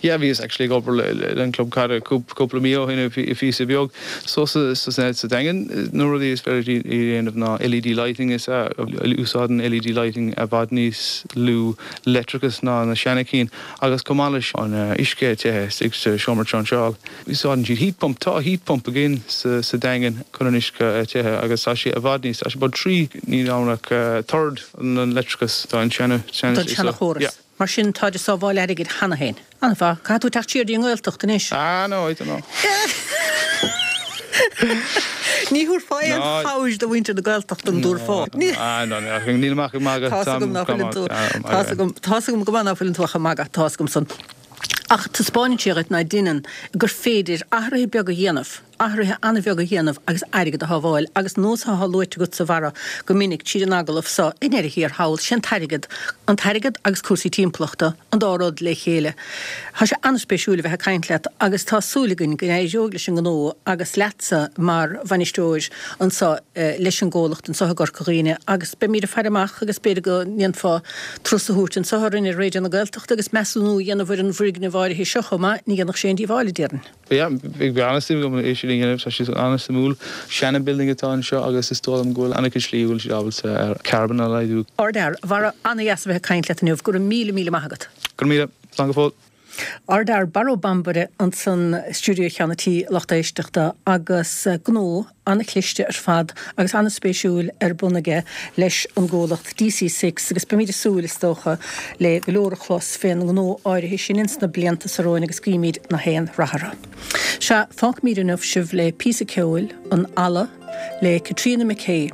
F: Yeah, bhíos actually ag obair le an club caide cúpla mí ó shin i phíosa beag. So sa sa Daingean na rudaí is féidir a dhéanamh ná LED lighting is ea úsáideann LED lighting i bhfad níos lú leictreachas ná na seana cinn agus chomh maith leis an uisce te istigh sa seomra trinseáil. Úsáideann siad heat pump, tá heat pump againn sa sa Daingean chun an uisce a te agus tá sé i bhfad níos, tá sé about 3 níl ann ach third an leictreachas don seana
A: seana Don seana chóras. Yeah. Mar sin, táid ag sábháil airgid cheana féin. An-mhaith. Caithfidh tú teacht siar dtí an nGaeltacht anois.
F: Ah no, I don't know.
A: Ní thabharfá aon chabhair do mhuintir na Gaeltachta an dtabharfá?
F: Nílim ach ag magadh.
A: Tá's agam ná fuileann tú. Tá's agam, tá's agam go maith ná fuileann tú ach ag magadh, tá's agam san. Ach taispeánann sé dhuit ná deineann gur féidir athruithe beaga a dhéanamh, athruithe an-bheaga a dhéanamh agus airgead a shábháil. Agus nós atá luaite agatsa, a Bharra, go minic tríd an agallamh so, i ndeireadh thiar thall, sé an t-airgead, an t-airgead agus cúrsaí timpeallachta, an dá rud le chéile. Tá sé an-spéisiúil a bheith ag caint leat agus tá súil againn go n-éireoidh leis an ngnó agus leatsa mar bhainisteoir anseo leis an gcomhlacht anseo i gCorca Dhuibhne agus beimid ag faire amach agus b'fhéidir go ndéanfá turas a thabhairt anseo orainn ar Raidió na Gaeltachta agus measúnú a dhéanamh ar an bhfoirgneamh áirithe seo chomh maith, ní dhéanfadh sé aon díobháil, a déarfainn.
F: Yeah, bheadh an-suim agam é sin a dhéanamh, tá sé an-suimiúil. Seana-building atá anseo agus is dóigh liom go bhfuil an-chuid slí a bhfuil siad ábalta carbon a laghdú.
A: Ardfhear, a Bharra, an-dheas a bheith ag caint leat inniu, go raibh míle, míle maith agat.
F: Go raibh míle, slán go fóill.
A: Ardfhear Barra Ó Bambaire ansan i stiúideo Cheann an Tí, lucht éisteachta, agus gnó an-chliste ar fad agus an-spéisiúil ar bun aige leis an gcomhlacht DC Six agus beimid ag súil, is dócha, le go leor a chlos fén ngnó áirithe sin ins na blianta so romhainn agus guímid na haon rath orthu. Sea, fágfaimid inniu sibh le píosa ceoil, An Eala, le Caitríona McKay.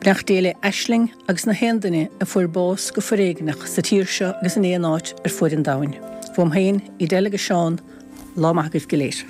A: Beannacht Dé le Aisling agus na haon duine a fuair bás go foréigneach sa tír seo agus in aon áit ar fuaid an domhain. Uaim féin, Edel agus Seán, lá maith agaibh go léir.